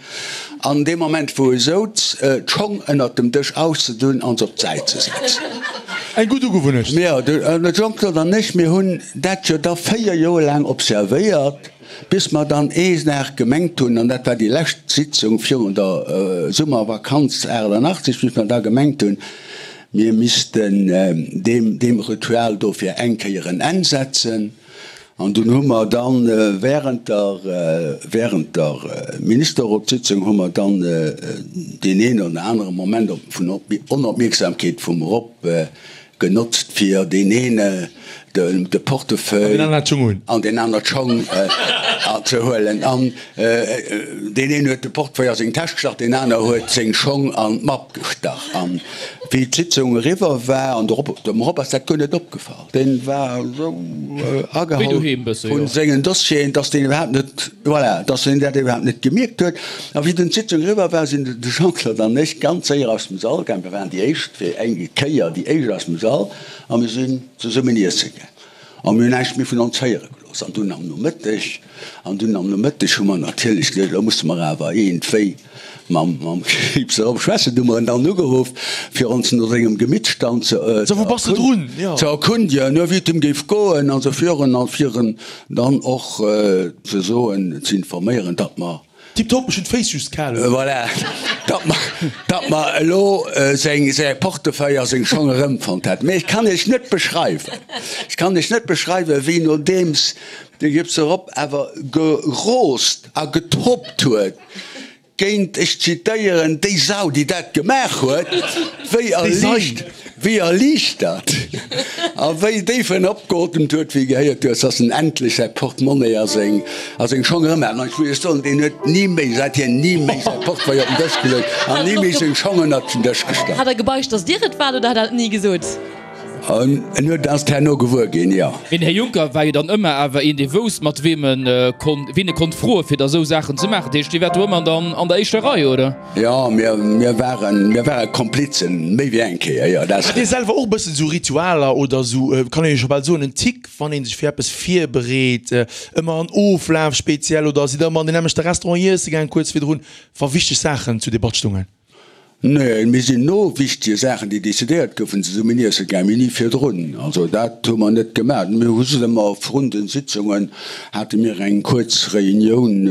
An dee Moment wou e souz, d'Schong ënnert dem Dësch auszedun an se op d'Säit ze setzen. Eng gutt Ugewunnecht. Jo, de Jean-Claude an ech, mir hunn dat jo da 4 Joer laang observéiert, bis mer dann ee Dag gemengt hunn, an dat war déi lescht Sitzung virun der Summervakanz 88, bis mer da gemengt hunn, mir missten deem, deem Ritual do fir eng Kéier en Enn setzen. An dunn hu mer dann während der, während der Ministerrotssitzung hu mer dann deen een oder anere Moment vun Onopmierksamkeet vum Rob genotzt, fir deen een de Portefeuille an deen aner d'Schong ze huelen. An deen een huet de Portefeuille a seng Täsch gestach, deen aner huet seng Schong an d'Mapp gestach. An wéi d'Sitzung eriwwer war, an de Rob, dem Rob ass dat guer net opgefall. Deen war esou agehall vun sengen Dossieren, dass deen iwwerhaapt net, voilà, dass deen dat iwwerhaapt net gemierkt huet. A wéi dunn d'Sitzung eriwwer war, sinn de Jean-Claude an ech ganz séier aus dem Sall gaang. Mir waren déi éischt, fir eng Kéier déi éischt aus dem Sall, a mir sinn zesummen iesse gaang. A mir hunn näischt méi vun ons héiere gelooss. An dunn am Nomëtteg, an dunn am Nomëtteg hu mer natierlech geduecht, elo musse mer awer iergendwéi mam Krieps erop schwätzen. Du hu mer en dann ugeruff, fir ons no sengem Gemittstand ze erkundegen, wéi et him géif goen an esou virun, a fir en dann och ze soen, ze informéieren, datt mer. Tiptop, ech hunn d'Féiss just kal. Voilà, datt mer, datt mer elo seng, säi Portefeuille a seng Schong erëmfonnt hätten. Mee ech kann Iech net beschreiwen, ech kann Iech net beschreiwen, wéi nodeems de Gipse Rob awer geroost a getobbt huet, Géint, ech zitéieren, déi Sau, déi dat gemaach huet, wéi erliicht, wéi erliichtert a wéi déif en opgeotemt huet, wéi e gehéiert huet, dass en endlech säi Portemonnaie a seng, a seng Schong erëm hat. An ech muss Iech soen, deen huet ni méi, säithier ni méi säi Portefeuille op den Dësch geluecht an ni méi seng Schong ënnert den Dësch gestallt. Hat der gebeicht, dass Dir et waart, oder hat der et ni gesot? En huet ass herno gewuer ginn, jo. Mee den Här Juncker war jo dann ëmmer awer een, dee wousst, mat weem en konnt, ween e konnt froen, fir da sou Saachen ze maachen. Dat heescht, Dir waart do ëmmer dann an der éischter Rei, oder? Jo, mir, mir waren, mir ware Komplizen, méi wéi eng Kéier, jo, dat. Hat Dir selwer och e bëssen esou Ritualer oder esou, kann een jo scho bal soen, en Tic, wann ee sech fir eppes virbereet, ëmmer en Oflaf speziell oder sidd Der ëmmer an deen nämmlechte Restaurant iesse gaang kuerz virdrun, wa wichteg Saachen zur Debatt stungen? Nee, mir sinn no wichtege Saachen, déi decidéiert goufen, zesummen iesse gaang, mee ni virdrun. Also dat hu mer net gemaach. Mir hu just ëmmer vrun den Sitzungen hate mir eng kuerz Reunioun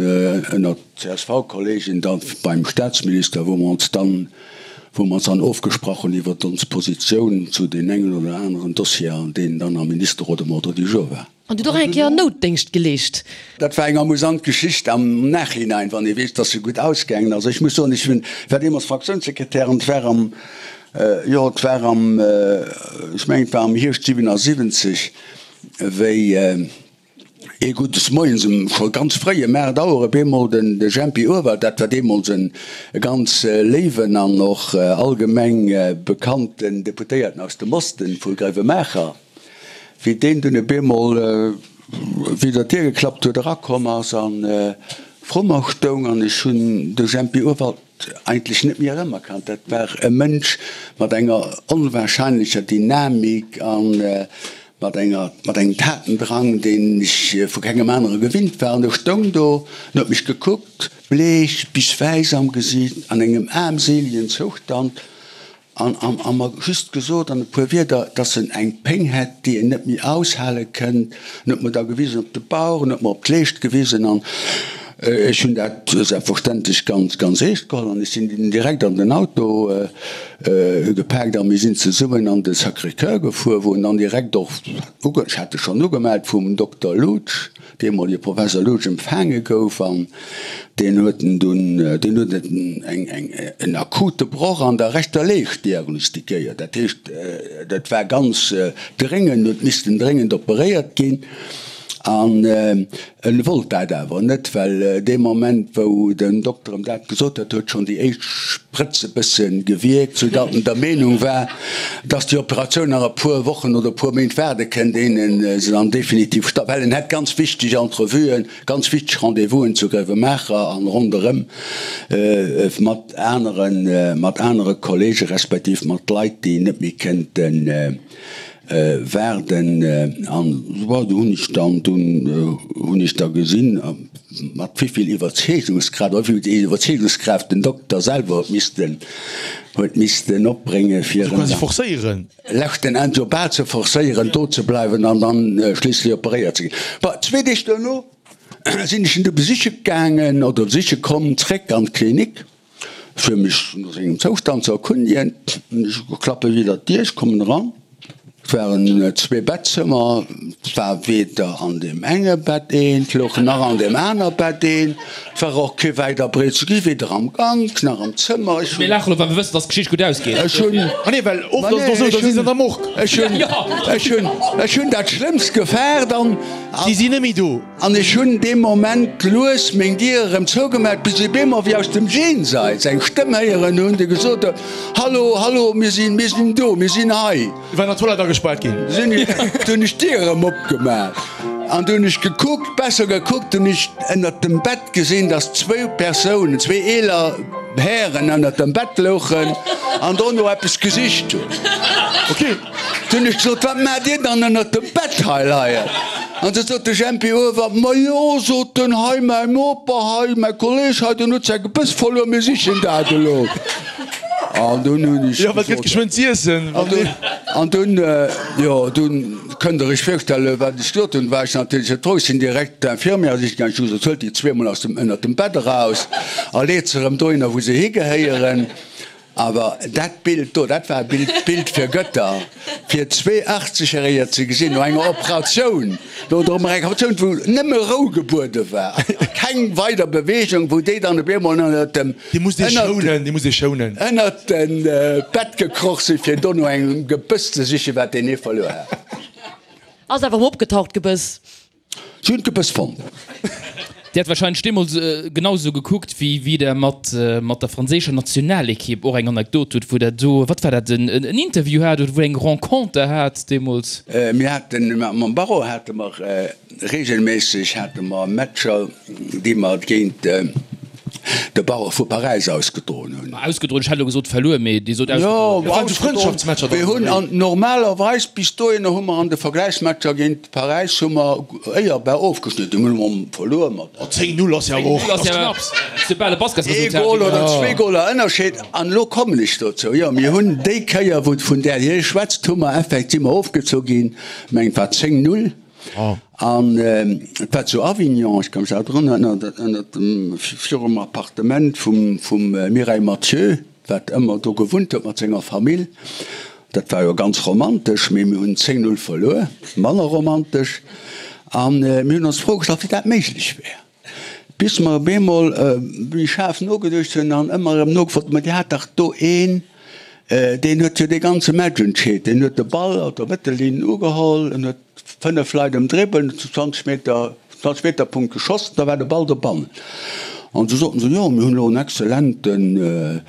ënnert CSV-Kollegen da beim Staatsminister, wou mer ons dann, wou mer ons dann ofgesprach hunn iwwert ons Positioun zu deem engen oder aneren Dossier, deen dann am Ministerrot um Ordre du jour war. An du hutt och eng Kéier Noutdéngscht geleescht. Dat war eng amusant Geschicht am Nachhinein, wann ee weess, dass se gutt ausgaangen ass. Ech muss soen, ech hunn, war deemools Fraktiounssekretär an et war am, jo, et war am, ech mengen, et war am Hierscht 77, wéi ee guddes Moies um, scho ganz fréi, ëm 8 Auer op eemol den de Jempi Urwald, dat war deemools en ganz léiwen an och allgemeng bekannten Deputéierten aus dem Osten vu Gréiwemaacher, Wéi deen dunn op eemol widder d'Dier geklappt huet, erakomm ass a vru mer stoung an ech hunn de Jempi Urwald eigentlech net méi erëmerkannt. Dat war e Mënsch mat enger onwahrscheinlecher Dynamik a mat enger, mat engem Tatendrang, deen ech vu kengem anere gewinnt war. An e stoung do an huet mech gekuckt, bleech bis wäiss am Gesiit, an engem aarmseelegen Zoustand. An a mer just gesot an e puer Wierder, dass en eng Péng hätt, déi en net méi aushale kënnt. En huet mer da gewisen op de Bauch, en huet mer op d'Leescht gewisen an ech hunn dat selbstverständlech ganz, ganz eescht geholl an ech sinn dunn direkt an den Auto gepaakt a mir sinn zesummen an de Sacré-Cœur gefuer, wou en dann direkt och, ech hat e schonn ugemellt vum Dokter Loutsch, deemolege Professor Loutsch empfaange gouf an deen huet en dunn, deen huet eng, eng, en akute Broch an der rechter Leescht diagnostiquéiert. Dat heescht, dat war ganz dréngend, huet missten dréngend operéiert ginn an en wollt dat awer net, well dee Moment wou den Dokter em dat gesot huet, huet schonn déi éischt Sprëtz e bësse gewierkt, soudatt en der Meenung war, dass déi Operatioun nach e puer Wochen oder e puer Méint waarde kënnt, éien en se dann definitiv statt, well en hätt ganz wichteg Entrevuen, ganz wichteg Rendez-vousen zu Gréiwemaacher an ronderëm mat aneren, mat anere Kollege respektiv mat Leit, déi net méi kënnten waarden. An bon, do hunn ech dann, dunn hunn ech da gesinn, mat wéi vill Iwwerzeegungskraaft, oder wéi vill Iwwerzeegungskraaft den Dokter selwer huet missten, huet missten opbréngen, fir en quasi forcéieren. Leschten Enn jo bal ze forcéieren, do ze bleiwen an dann schliisslech operéiert ze ginn. Bon, zwee Deeg duerno sinn ech en du besiche gaangen, oder besiche komm, zréck an d'Klinik, fir mech no sengem Zoustand ze erkundigen. Ech klappe widder d'Dier, ech kommen eran. Et waren zwee Bettzëmmer, et war weder an deem enge Bett een, et louch nach an deem aner Bett een. Et war och kee wäit a breet ze gi, weder am Gank nach am Zëmmer. Ech hunn. Mir laachen elo, well mir wëssen, dass d'Geschicht gutt ausgeet. Ech hunn. Ah nee, well oft ass et och esou, da si se an der Morgue. Ech hunn, ech hunn, ech hunn dat Schlëmmst gefaart an. Si sinn net méi do. An ech hunn dee Moment lues meng Dier erëm zougemaach, bis ech op eemol wéi aus dem Jenseits eng Stëmm héieren hunn, déi gesot huet, Hallo, hallo, mir sinn, mir sinn do, mir sinn hei. War an der Toilette agespaart ginn. Sinn ech, du hunn ech d'Dier erëm opgemaach an du hunn ech gekuckt, besser gekuckt, hunn ech ënnert dem Bett gesinn, dass zwou Persounen, zwee eeler Hären ënnert dem Bett louchen an dono eppes gesicht hunn. Ok. Du hunn ech gesot, Wat maacht Dir dann ënnert dem Bett hei leien? An du sot de Jempi Uewer, Majo, sot en, hei mäi Noper hei, mäi Kolleg hei, deen huet säi Gebëss verluer, mir sichen dat elo. An dunn hunn ech. Jo, wat gëtt geschwënn z'iessen? An dunn, jo, dunn kënnt Der Iech virstellen, wat ech gesot hunn, war ech natierlech net frou. Ech sinn direkt d'Infirmière sichen gaangen. Ech hu gesot, Huelt déi zweemol aus dem, ënnert dem Bett eraus a leet se erëm dohinner, wou se higehéieren. Awer dat Bild do, dat war e Bild, Bild fir Gëtter, fir 82 Järeger ze gesinn no enger Operatioun, no der Operatioun, wou nëmme Rou gebuede war, keng weider Beweegung, wou déi dann op eemol ënnert dem, Dee muss dee schounen, dee muss dee schounen. ënnert de Bett gekroch sinn, fir do no engem Gebëss ze sichen, wat deen ee verluer hat. Ass awer erëm opgetaucht, d'Gebëss. Si hunn d'Gebëss fonnt. Dir hat wahrscheinlech deemools genau esou gekuckt, wéi wéi Der mat mat der franséischer Nationalekipp och eng Anekdot hutt, wou Der do, wat war dat, en en Interview hat oder wou Der eng Renconter hat deemools? Mir haten, mam Barreau hate mer reegelméisseg hate mer Matcher, déi mer géint de Barreau vu Paräis ausgedroen hunn. Ausgedroen, ech hätt elo gesot verluer, mee Dir sot ausgedroen. Jo, ausgedroen. Mir hunn an normalerweis bis dohinner hu mer an de Vergläichsmatcher géint Paräis hu mer éierbar ofgeschnidden. Hunn mer verluer mat. 10, 0 ass jo awer och knapps. Ee Gol oder zwee Goler Ënnerscheed. An elo kommen ech dozou. Jo, mir hunn déi Kéier, wou vun där Dir schwätzt, hu mer effektiv, si mer ofgezu ginn, mengen et war 10, 0. An et war zu Avignon, ech ka mech nach drun erënneren, ënnert dem, virum Appartement vum, vum Mireille Mathieu, wat ëmmer do gewunnt huet mat senger Famill. Dat war jo ganz romantesch, mee mir hunn 10, 0 verluer, manner romantesch. A mir hunn ons d'Fro gestallt, wéi dat méiglech wär. Bis mer op eemol méi schaarf nogeduecht hunn an ëmmer erëm nogefrot hunn, Ma Dir hat dach do een, deen huet jo dee ganze Match entscheet. Deen huet de Ball op der Mëttellinn ugeholl, en huet 5 Leit ëmdribbelt, huet zu 20 Meter, 20 Meter Punkt geschoss, da war de Ball dobannen. An du soten se, Jo, mir hunn elo en exzellenten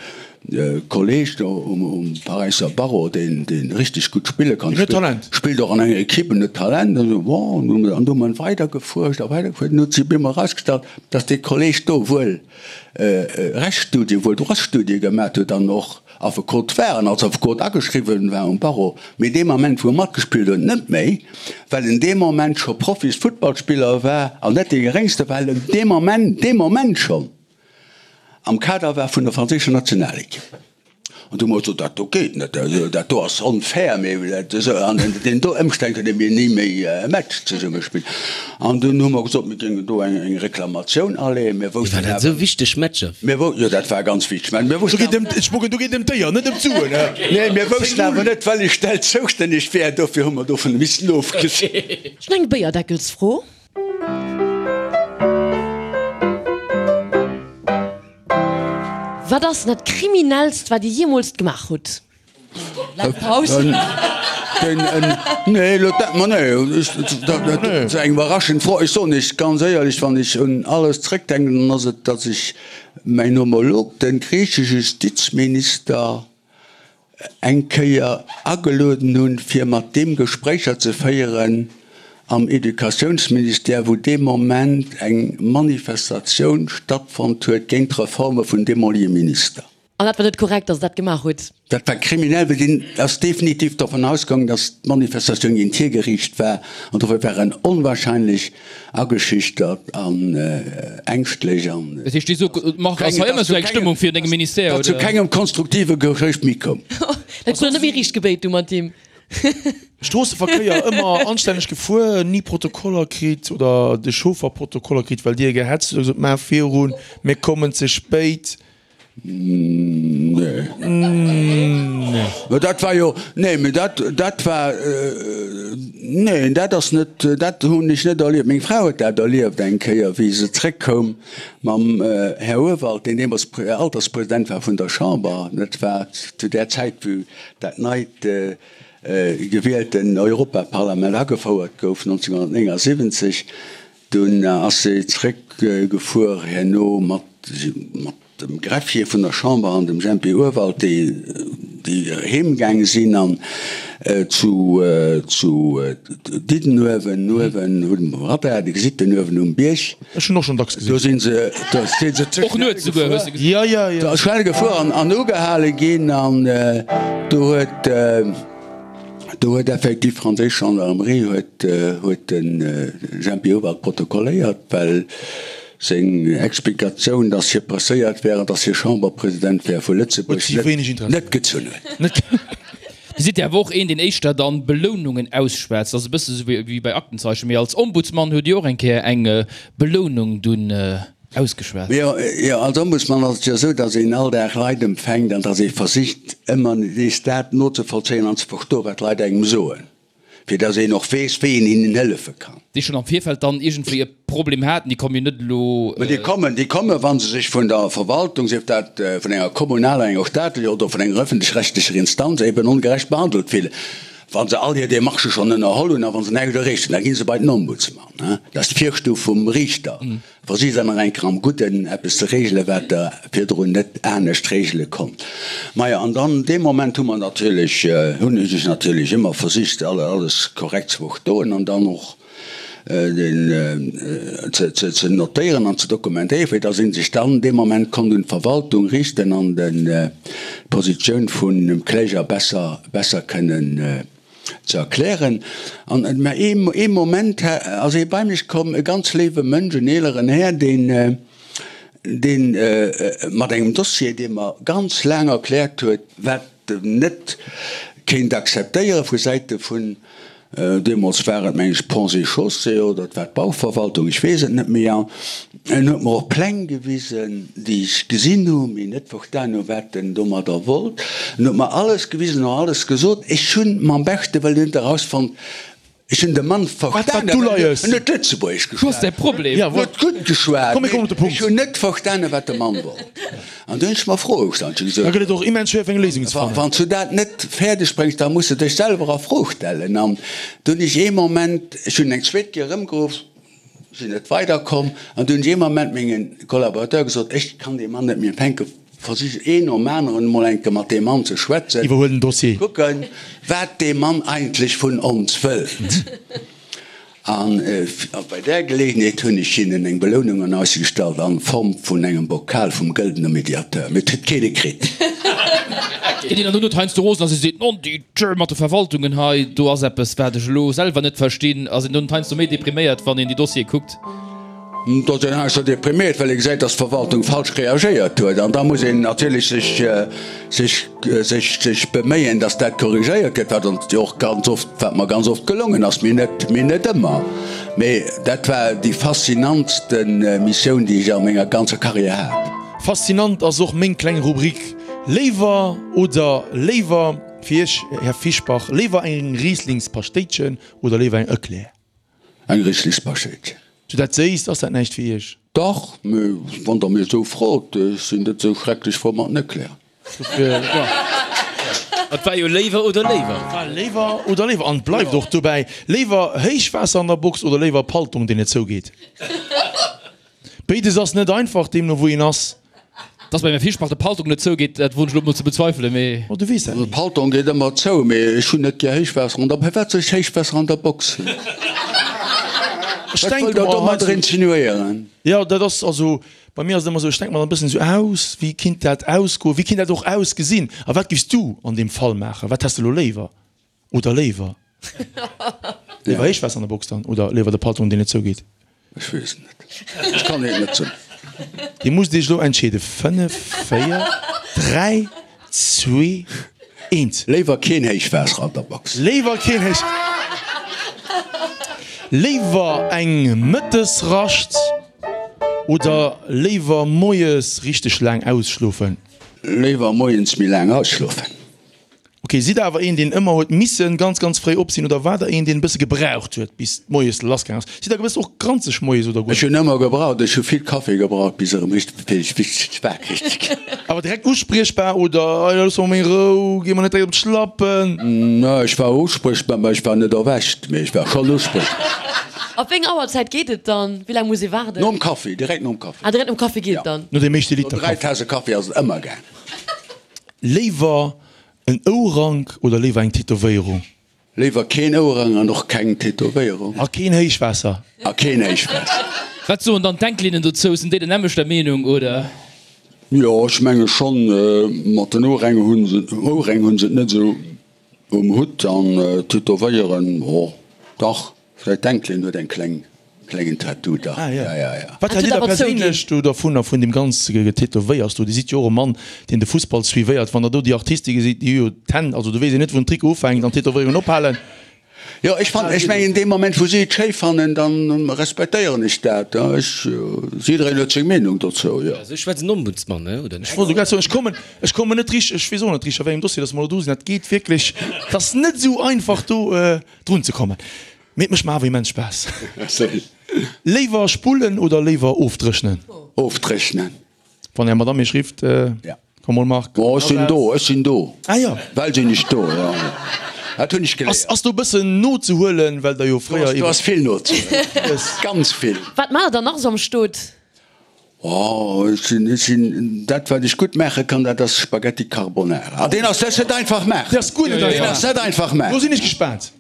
Kolleg do um Paräisser Barreau, deen richteg gutt spille kann, spillt och an enger Equipe, en huet Talent. An esou, bon, an du hu mer weider gefuerscht a weider gefuerscht, an huet sech op eemol erausgestallt, datt dee Kolleg do wuel Rechtsstudie, wuel Droitsstudie gemat huet an och Affekot war an als Affekot ageschriwwen war um Barreau, mee dee Moment, wou e matgespillt huet, net méi, well en dee Moment scho Profis-Futtballspiller war an net dee geréngste, well en dee Moment, dee Moment schonn am Kader war vun der franséischer Nationalekipp. An du hu mer gesot, dat do geet net, dat do ass onfair, mir an deenen do Ëmstänn kënne mir ni méi e Match zesumme spillen. An dunn hu mer gesot, mir géingen do eng Reklamatioun aleeën. Mir woussten Waren dat esou wichteg Matcher? Mir wou, jo, dat war ganz wichteg. Mä mir woussten awer. Do geet ëm, ech mogen, do geet ëm d'Éier, net ëm d'Suen, hä? Nee, mir woussten awer net, wellech Stell zoustänneg wär, dofir hu mer dovun missen ofgesinn. Ech hunn eng Béierdeckelsfro. Wat ass dat kriminellst wat dir jeemools gemaach hutt? Laang Paus. Nee, elo dat, ma nee, dat ass eng iwwerraschend Fro. Ech soen Iech ganz éierlech, wann ech un alles zréckdenken, dann ass et, datt ech mäin Homolog, de griichesche Justizminister, eng Kéier agelueden hunn, fir mat deem Gespréicher ze féieren am Educatiounsministère, wou dee Moment eng Manifestatioun stattfonnt huet géint d'Reforme vun deemolige Minister. An dat war net korrekt, datt Der dat gemaach hutt? Dat war kriminell, well deen ass definitiv dovun ausgaangen, datt d'Manifestatioun géint hie geriicht war. An dofir war en onwahrscheinlech Ageschüchtert an ängschtlech an. Dat heescht, dir sot, Marc, ass hei ëmmer esou eng Stëmmung virun dengem Ministère, oder? Datt zu kengem konstruktive Gespréich méi koum. Dat krut der net méi riicht gebéit du mat him. Stroosseverkéier ëmmer anstänneg gefuer, ni Protokoller kritt oder de Chauffer Protokoller kritt, well dir gehetzt hutt a gesot, maach virun, mir kommen ze spéit. Nee. Mä dat war jo, nee, mä dat, dat war, neen, dat ass net, dat hunn ech net erlieft. Meng Fra huet dat erlieft eng Kéier, wéi se zréckkoum mam Här Urwald, deen deemools Alterspresident war vun der Chamber. Dat war zu där Zäit, wou dat neit gewielten Europaparlament agefouert gouf, 1979. Dunn ass se zréckgefuer herno mat dem Greffier vun der Chamber an dem Jempi Urwald, déi heem gaange sinn an zu Diddenuewen, uewen um Radar, Dir gesitt den uewen um Bierg. Ech hunn och schonn dacks gesinn. Do si se ze schnell gefuer an ugehale ginn an do huet. Do huet effektiv d'franséisch Gendarmerie huet huet de Jempi Hubert protokolléiert, well. Seng Explikatioun, datt hie presséiert wär an datt hie Chamberpresident wär vu Lëtzebuerg, net gezunn huet. Dir sidd jo awer och een, deen éischter dann Belounungen ausschwätzt. Dat ass e bësse sou wéi bei Aktenzeichen. Mee als Ombudsmann hutt Dir och eng Kéier eng Belounung dunn ausgeschwat. Jo, jo, als Ombudsmann ass et jo esou, datt een all Dag Leit empfänkt an datt ee versicht, ëmmer nees dat nozevollzéien an ze verstoen, wat d'Leit engem soen. fir dass een och weess, wéi een hinnen hëllefe kann. Déi schonn am Virfeld dann iergendwéi e Problem haten, déi kommen jo net elo. Mä déi kommen, déi kommen, wa se sech vun der Verwaltung, sief dat vun enger kommunaler, enger staatlecher oder vun enger öffentlech-rechtlecher Instanz, eben ongerecht behandelt fillen. Wa se all hir Démarchë schonn ënnerholl hunn a wa se näischt erreecht hunn, da gi se bei den Ombudsman. Dat ass d'Virstuf vum Riichter. Versicht dann nach eng Kéier am Gudden eppes ze regelen, wat Der virdrun net anescht regele konnt. Majo, an dann dee Moment hu mer natierlech, hunn ech natierlech ëmmer versicht, alles korrekt ze verstoen an dann och den ze notéieren an ze dokumentéieren, fir dass ee sech dann dee Moment konnt un d'Verwaltung riichten an d'Positioun vun dem Kläger besser, besser kënnen ze erklären. An mä ee Moment ass ee bei mech komm, e ganz léiwe Mënsch, en eeleren Här, deen, deen mat engem Dossier, dee mer ganz laang erkläert huet, wat en net kéint akzeptéiere vu Säite vun, deemools war et, meng ech, Ponts et Chaussées oder et war d'Bauverwaltung, ech weess et net méi. An en huet mer och Pläng gewisen, déi ech gesinn hu, mee net verstan hu wat en domadder wollt. En huet mer alles gewisen an alles gesot. Ech hunn mam beschte Wëllen net erausfonnt, ech hunn de Mann verstanen, well en huet Lëtzebuergesch geschwat, en huet gutt geschwat, mee ech hunn net verstanen, wat de Mann wollt. An du hunn ech mer Froe gestallt. Ech hu gesot, Da gëtt et och immens schwéier fir eng Léisung ze fannen. Wann s du dat net fäerdeg bréngs, da muss de dech selwer a Fro stellen. An du hunn ech ee Moment, ech hunn eng zweet Kéier erëmgeruff, Sinn net weider komm an du hunn ech ee Moment menge Collaborateur gesot, ech kann dee Mann net méi empfänken, versich een nom aneren emol eng Kéier mat deem Mann ze schwätzen, Iwwerhuel den Dossier. kucken, wat dee Mann eigentlech vun ons wëllt. An bei där Geleegenheet hunn ech hinnen eng Belounung an Aussicht gestallt an Form vun engem Bokal vum Gëldener Mediateur, mee et huet keen e kritt. Ginn een dann dono heiansdo rosen a se seet, Non, déi Tjö mat de Verwaltungen hei, do ass eppes, wat ech elo selwer net verstinn. Ass een dann heiansdo méi depriméiert, wann een déi Dossiere kuckt? Et ass een heiansdo depriméiert, well ee gesäit, datt d'Verwaltung falsch reagéiert huet. An da muss een natierlech sech, sech, sech, sech beméien, datt dat korrigéiert gëtt, wat ons jo och ganz oft, wat mer ganz oft gelongen ass, mee net, mee net ëmmer. Mee dat war déi faszinantste Missioun, déi ech a menger ganzer Carrière hat. Faszinant ass och meng kleng Rubrik Léiwer oder léiwer. Fir Iech, Här Fischbach, léiwer eng Rieslingspaschtéitchen oder léiwer eng Eclair? Eng Rieslingspaschtéitchen. Sou dat Séisst, ass dat näischt fir Iech? Dach, mee wann Der mir esou frot, ech sinn net esou schrecklech frou mat den Eclairen. Et war jo léiwer oder léiwer. Et war léiwer oder léiwer an et bleift och dobäi. Léiwer Héichwaasser an der Box oder léiwer Paltong, deen net zougeet? Béides ass net einfach, deemno wou een ass. Dass beim Här Fischbach de Paltong net zougeet, dat woen ech elo mol ze bezweifelen, mee. Oh, du weess dat ni. De Paltong geet ëmmer zou, mee ech hunn net gär Héichwaasser an der. Firwat soll ech Héichwaasser an der Box hunn? Ech Wat denke wëllt Der mer domadder heiansdo. insinuéieren? Jo, dat ass also, bei mir ass et ëmmer esou, ech denke mer dann e bëssen esou aus, wéi kinnt dat ausgoen, wéi kinnt dat och ausgesinn a wat giffs du an deem Fall maachen? Wat häss de elo léiwer? Oder léiwer? Léiwer Héichwaasser an der Box dann oder léiwer de Patron deen net zougeet? Ech weess et net. Ech kann et net soen. Dir musst iech elo entscheeden. 5, 4, 3, 2, 1. Léiwer keen Héichwaasser an der Box. Léiwer keen Héich. Léiwer eng Mëttesrascht oder léiwer moies richteg laang ausschlofen? Léiwer moies méi laang ausschlofen. Ok, sidd der awer een deen ëmmer huet missen ganz ganz fréi op sinn oder war der een deen e bësse gebraucht huet bis moies lass gaang ass? Sidd der gewëss och granzeg moies oder guer Ech hunn ëmmer gebraucht, ech hu vill Kaffi gebraucht bis erëm richteg fir ech richteg wakereg ze ginn. Awer direkt uspriechbar oder ei looss mer meng Rou, gi mer net direkt op d'Schlappen? Nee, ech war uspriechbar, mä ech war net erwächt, mee ech war schonn uspriechbar. Op wéi eng Auerzäit geet et dann? Wéi laang muss ee waarden? Nom Kaffi, direkt nom Kaffi. Ah, direkt nom Kaffi geet et dann? No deem éischte Liter No 3 Kaffi. Tase Kaffi ass et ëmmer gaang. Léiwer en Ourank oder léiwer eng Tätowéierung? Léiwer keen Ouerang an och keng Tätowéierung. A keen Héichwaasser. A keen Héichwaasser. Wat soen dann d'Enkelinnen dozou? Sinn déi der nämmlechter Meenung, oder? Jo, ech menge schonn. Mat den Oueräng hunn se, Oueräng hunn se et net esou um Hutt an Tätowéieren, jo dach, vläicht d'Enkelin huet eng kleng. Klengen Tattoo dach. Ah, ja. Ja, ja, ja. Wat Dat hält Dir huet da awer zouginn. perséinlech do dervunner, vun deem ganze Getätowéiers do? Dir sidd jo och e Mann, deen de Fussball suivéiert. Wann Der do déi Artiste gesitt, déi hu jo d'Hänn, also do weess een net, wou den Trikot ufänkt an d'Tätowéierungen ophalen. Jo, ech fannen, ech mengen, dee Moment, wou si et schéi fannen, da respektéieren ech dat. Ech, jiddereen huet seng Meenung dozou, jo. Esou schwätzt en Ombudsmann, ne, oder en Ech wollt elo grad soen, ech kommen, ech kommen net richteg, ech weess och net richteg, a wéi engem Dossier dass mer elo do sinn. Dat geet wierklech, et ass net esou einfach do drun ze kommen. Mee et mécht mer awer immens Spaass. Léiwer spullen oder léiwer ofdréchnen? Ofdréchnen. Wann Är Madame Iech rifft, komm mol Marc. Oh, ech sinn do, ech sinn do. Ah jo. Well sinn ech do, jo. Dat hunn ech geléiert. Ass do e bëssen nozehuelen, well der jo fréier. Do ass vill nozehuelen. Ganz vill. Wat maacht der dann nach esou am Stot? Oh, ech sinn, ech sinn, dat wat ech gutt maache kann, dat ass Spaghetti Carbonara. Ah, deen ass, dat ass net einfach maachen. Dee ass guer net einfach. Deen ass net einfach maachen. Do sinn ech gespaant.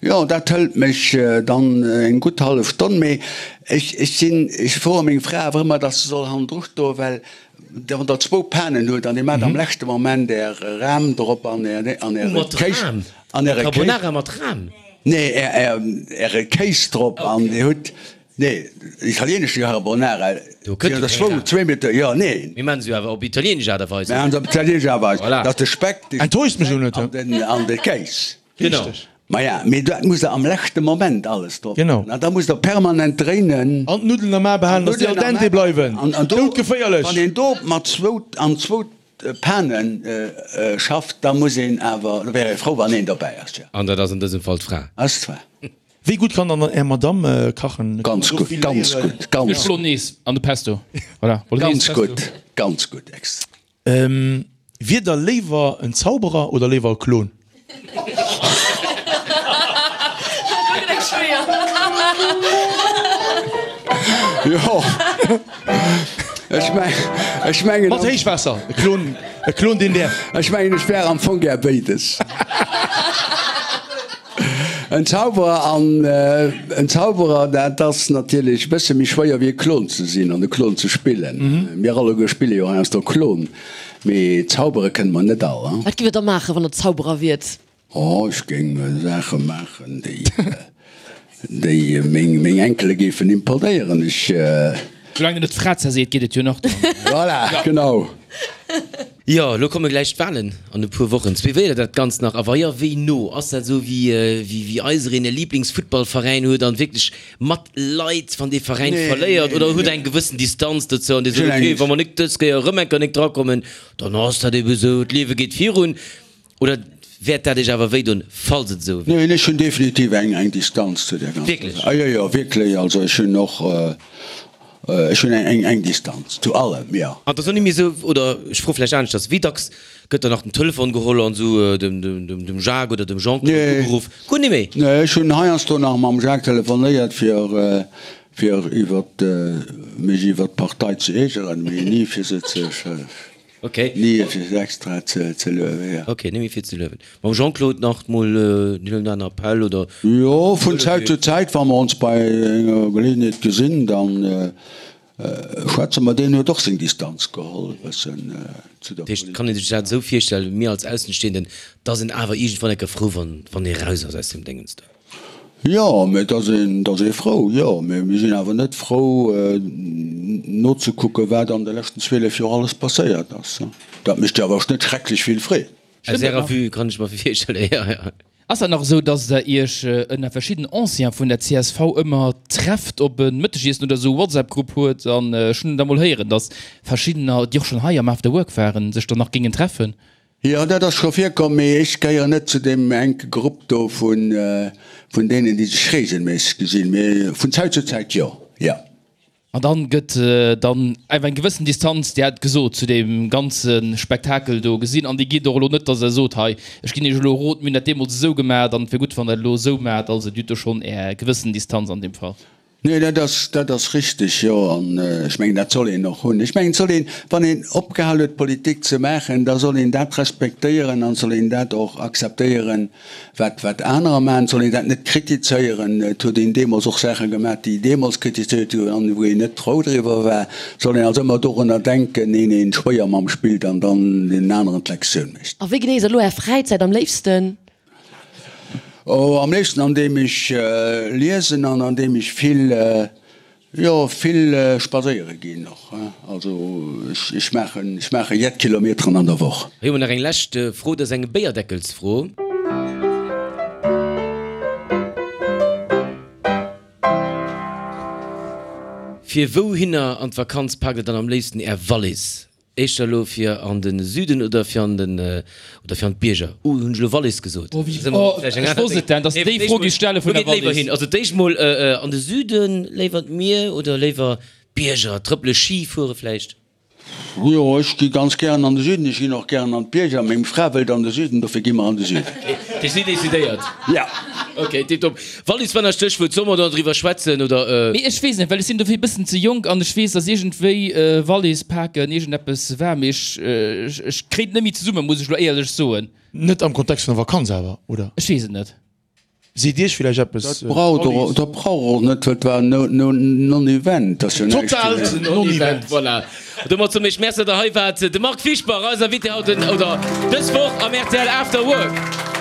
Jo, dat hëlt mech dann eng gutt hallef Stonn, mee ech, ech sinn, ech froe meng Fra awer ëmmer, dass se soll hannendru stoen, well wann der zwou Panen hutt an dir maacht am leschte Moment är Ram drop an är, an äre Mat Kéis, Ram? an äre Kéis. Carbonara mat Ram? Nee, är, är, äre Kéis drop an dir hutt, nee, italienesche Carbonara, Do kënnt jo keng Ram. zwéi Meter, jo, nee. Mir maachen se jo awer op italienesch Aart a Weis. Mir maachen se op italienesch Aart a Weis, Voilà. dass de Speck, de Enttäuscht mech elo net, an den, an de Kéis. Genau. Richteg. Maja, mee dat musst der am leschte Moment alles drop Genau. maachen. An da musst der permanent dréinen. An d'Nuddelen am A behalen, dass déi al dente bleiwen. An, an do, Doudgeféierlech! wann een do mat zwou, an zwou Pane schafft, da muss een awer, da wär ee frou, wann een dobäi ass, jo. An dat ass an dësem Fall d'Fra. Ass d'Fra. Wéi gutt kann dann Är Madamm kachen? Ganz gutt, ganz gutt, ganz Ech Bolognese an de Pesto. Voilà, Bolognese, Ganz Pesto. gutt, ganz gutt, ex. Wier der léiwer en Zauberer oder léiwer e Klon? Jo, ech meng, ech mengen. Mat Héichwaasser, e Klon, e Klon deen däerf. Ech mengen, ech wär am Fong gär béides. En Zauberer an en Zauberer, dat ass natierlech e bësse méi schwéier wéi e Klon ze sinn an e Klon ze spillen. Mir alleguer spille jo heiansdo Klon, mee zaubere kënne mer net all. Wat giff der da maachen, wann der Zauberer wiert? Oh, ech géing Saache maachen, déi déi meng Enkele géifen imponéieren. Ech. Soulaang der net d'Fra zerseet, geet et jo nach. Voilà, genau. Jo, elo komme gläich d'Wahlen an e puer Wochen. Suivéiert Der dat Ganzt nach? A wa jo, wéi no? Ass dat esou wéi wéi eisereen e Liblingsfuttballveräin huet an wierklech mat leit, wann dee Veräin verléiert? Oder hutt Der eng gewëssen Distanz dozou an Dir sot, ok, wa mer nik dës Kéier erëm eng Kéier nik drakommen, dann ass dat ebe sou, d'Liewe geet virun? Oder wäert dat Iech awer wéidoen, falls et esou wier? Neen, ech hunn definitiv eng eng Distanz zu där ganzer Wierklech? Saach. Jo, jo, wierklech. Also ech hunn och, ech hunn eng eng Distanz zu allem, jo. An et ass och net méi esou, oder ech froe vläicht aneschters, Wéi dacks gëtt dann nach den Telefon geholl an esou dem dem dem Jacques oder dem Jean-Claude ugeruff? Guer net méi? Nee, ech hunn heiansdo nach mam Jacques telefonéiert, fir fir iwwert mech iwwert d'Partei ze iergeren, mee ni fir se ze Ok. Ni fir se extra ze luewen, jo. Ok, ni méi fir ze luewen. Mam Jean-Claude nach mol deen oder aneren Appell, oder? Jo, vun Zäit zu Zäit, wa mer ons bei enger Geleeënheet gesinn, da schwätze mer. Deen huet och seng Distanz geholl e bëssen zu der Dat heescht, Politik. kann ee sech dat esou virstellen, mir als Aussenstehenden, dass een awer iergendwann eng Kéier frou wann wann ee raus ass aus deem Déngens do? Jo, mee et ass een, et ass ee frou, jo. Mee mir sinn awer net frou nozekucken, wat an de leschten 12 Joer alles passéiert ass. Dat mécht jo awer och net schrecklech vill Freed. Aus Ärer Vue kann ech mer virstellen, jo, jo. Ass dat nach esou, dass Der Iech ënner verschidden Anciens vun der csv ëmmer trefft op e Mëttegiessen oder esou e WhatsApp-Grupp huet? An ech hunn da mol héieren, dass verschiddener, déi och schonn hei am After Work waren, sech dann nach géingen treffen. Jo, dat ass scho virkomm, mee ech gehéieren net zu deem enke Grupp do vun deenen, déi sech reegelméisseg gesinn, mee vun Zäit zu Zäit jo, jo. An dann gëtt dann einfach eng gewëssen Distanz, Dir hat gesot, zu deem ganze Spektakel do gesinn. An déi geet och elo net, datt Der sot, hei, ech ginn Iech elo e Rot, mir hunn dat deemools esou gemaach an et wier gutt, wann Der et elo esou maacht. Also Dir hutt do schonn Är gewëssen Distanz an deem Fall. Nee, dat ass, dat ass richteg, jo. An ech mengen, dat soll een och hunn. Ech mengen, et soll een, wann een opgehal huet, Politik ze maachen, da soll een dat respektéieren an soll een dat och akzeptéieren, wat, wat anerer maachen. Et soll een dat net kritizéieren. Et huet een deemools och Saache gemaach, déi deemools kritizéiert goufen an wou een net frou driwwer war. Et soll een also ëmmer dorunner denken, een een schwéier mam spillt an dann deenen aneren d'Lektioun mécht. A wéi genéisst Der elo Är Fräizäit am léifsten? Oh, am léifsten an deem ech liesen an an deem ech vill, jo, vill spadséiere ginn och. Also ech maachen, ech maache jett Kilometeren an der Woch. Hei hu mer nach eng lescht Fro, dat ass eng Béierdeckelsfro. Fir wouhinner an d'Vakanz paakt der dann am léifsten är Wallis? Éischter elo fir an de Süden oder fir an den oder fir an d'Bierger? Uh, hunn ech elo Wallis gesot? Oh, wéi, oh, ech wosst et denn, dass de déi Fro géifs stelle vun der Wallis. Also d'éischt mol an de Süden, léiwer d'Mier oder léiwer d'Bierger, trëppele, Ski fuere vläicht? Jo, ech gi ganz gären an de Süden, ech ginn och gären an d'Bierger. Meng Fra wëllt an de Süden, dofir gi mer an de Süden. Ok, si decidéiert. Ja. Ok, tiptop. Wallis war nach Stéchwuert. Solle mer do driwwer schwätzen oder? Mee ech weess net, well ech sinn dofir e bëssen ze jonk an ech weess, dass iergendwéi Wallis paken iergendeppes war, mee ech ech kréien et net méi zesummen, muss ech elo éierlech soen. Net am Kontext vun der Vakanz awer, oder? Ech weess et net. Seet Iech villäicht eppes? Dat braucht och, dat brauch och net, well et war en Non-Event. Ass jo näischt. Totaalt Non-Event, voilà. Domat soen ech Merci, datt Der hei waart. De Marc Fischbach, eis Invité haut den, oder dës Woch am rtl After Work.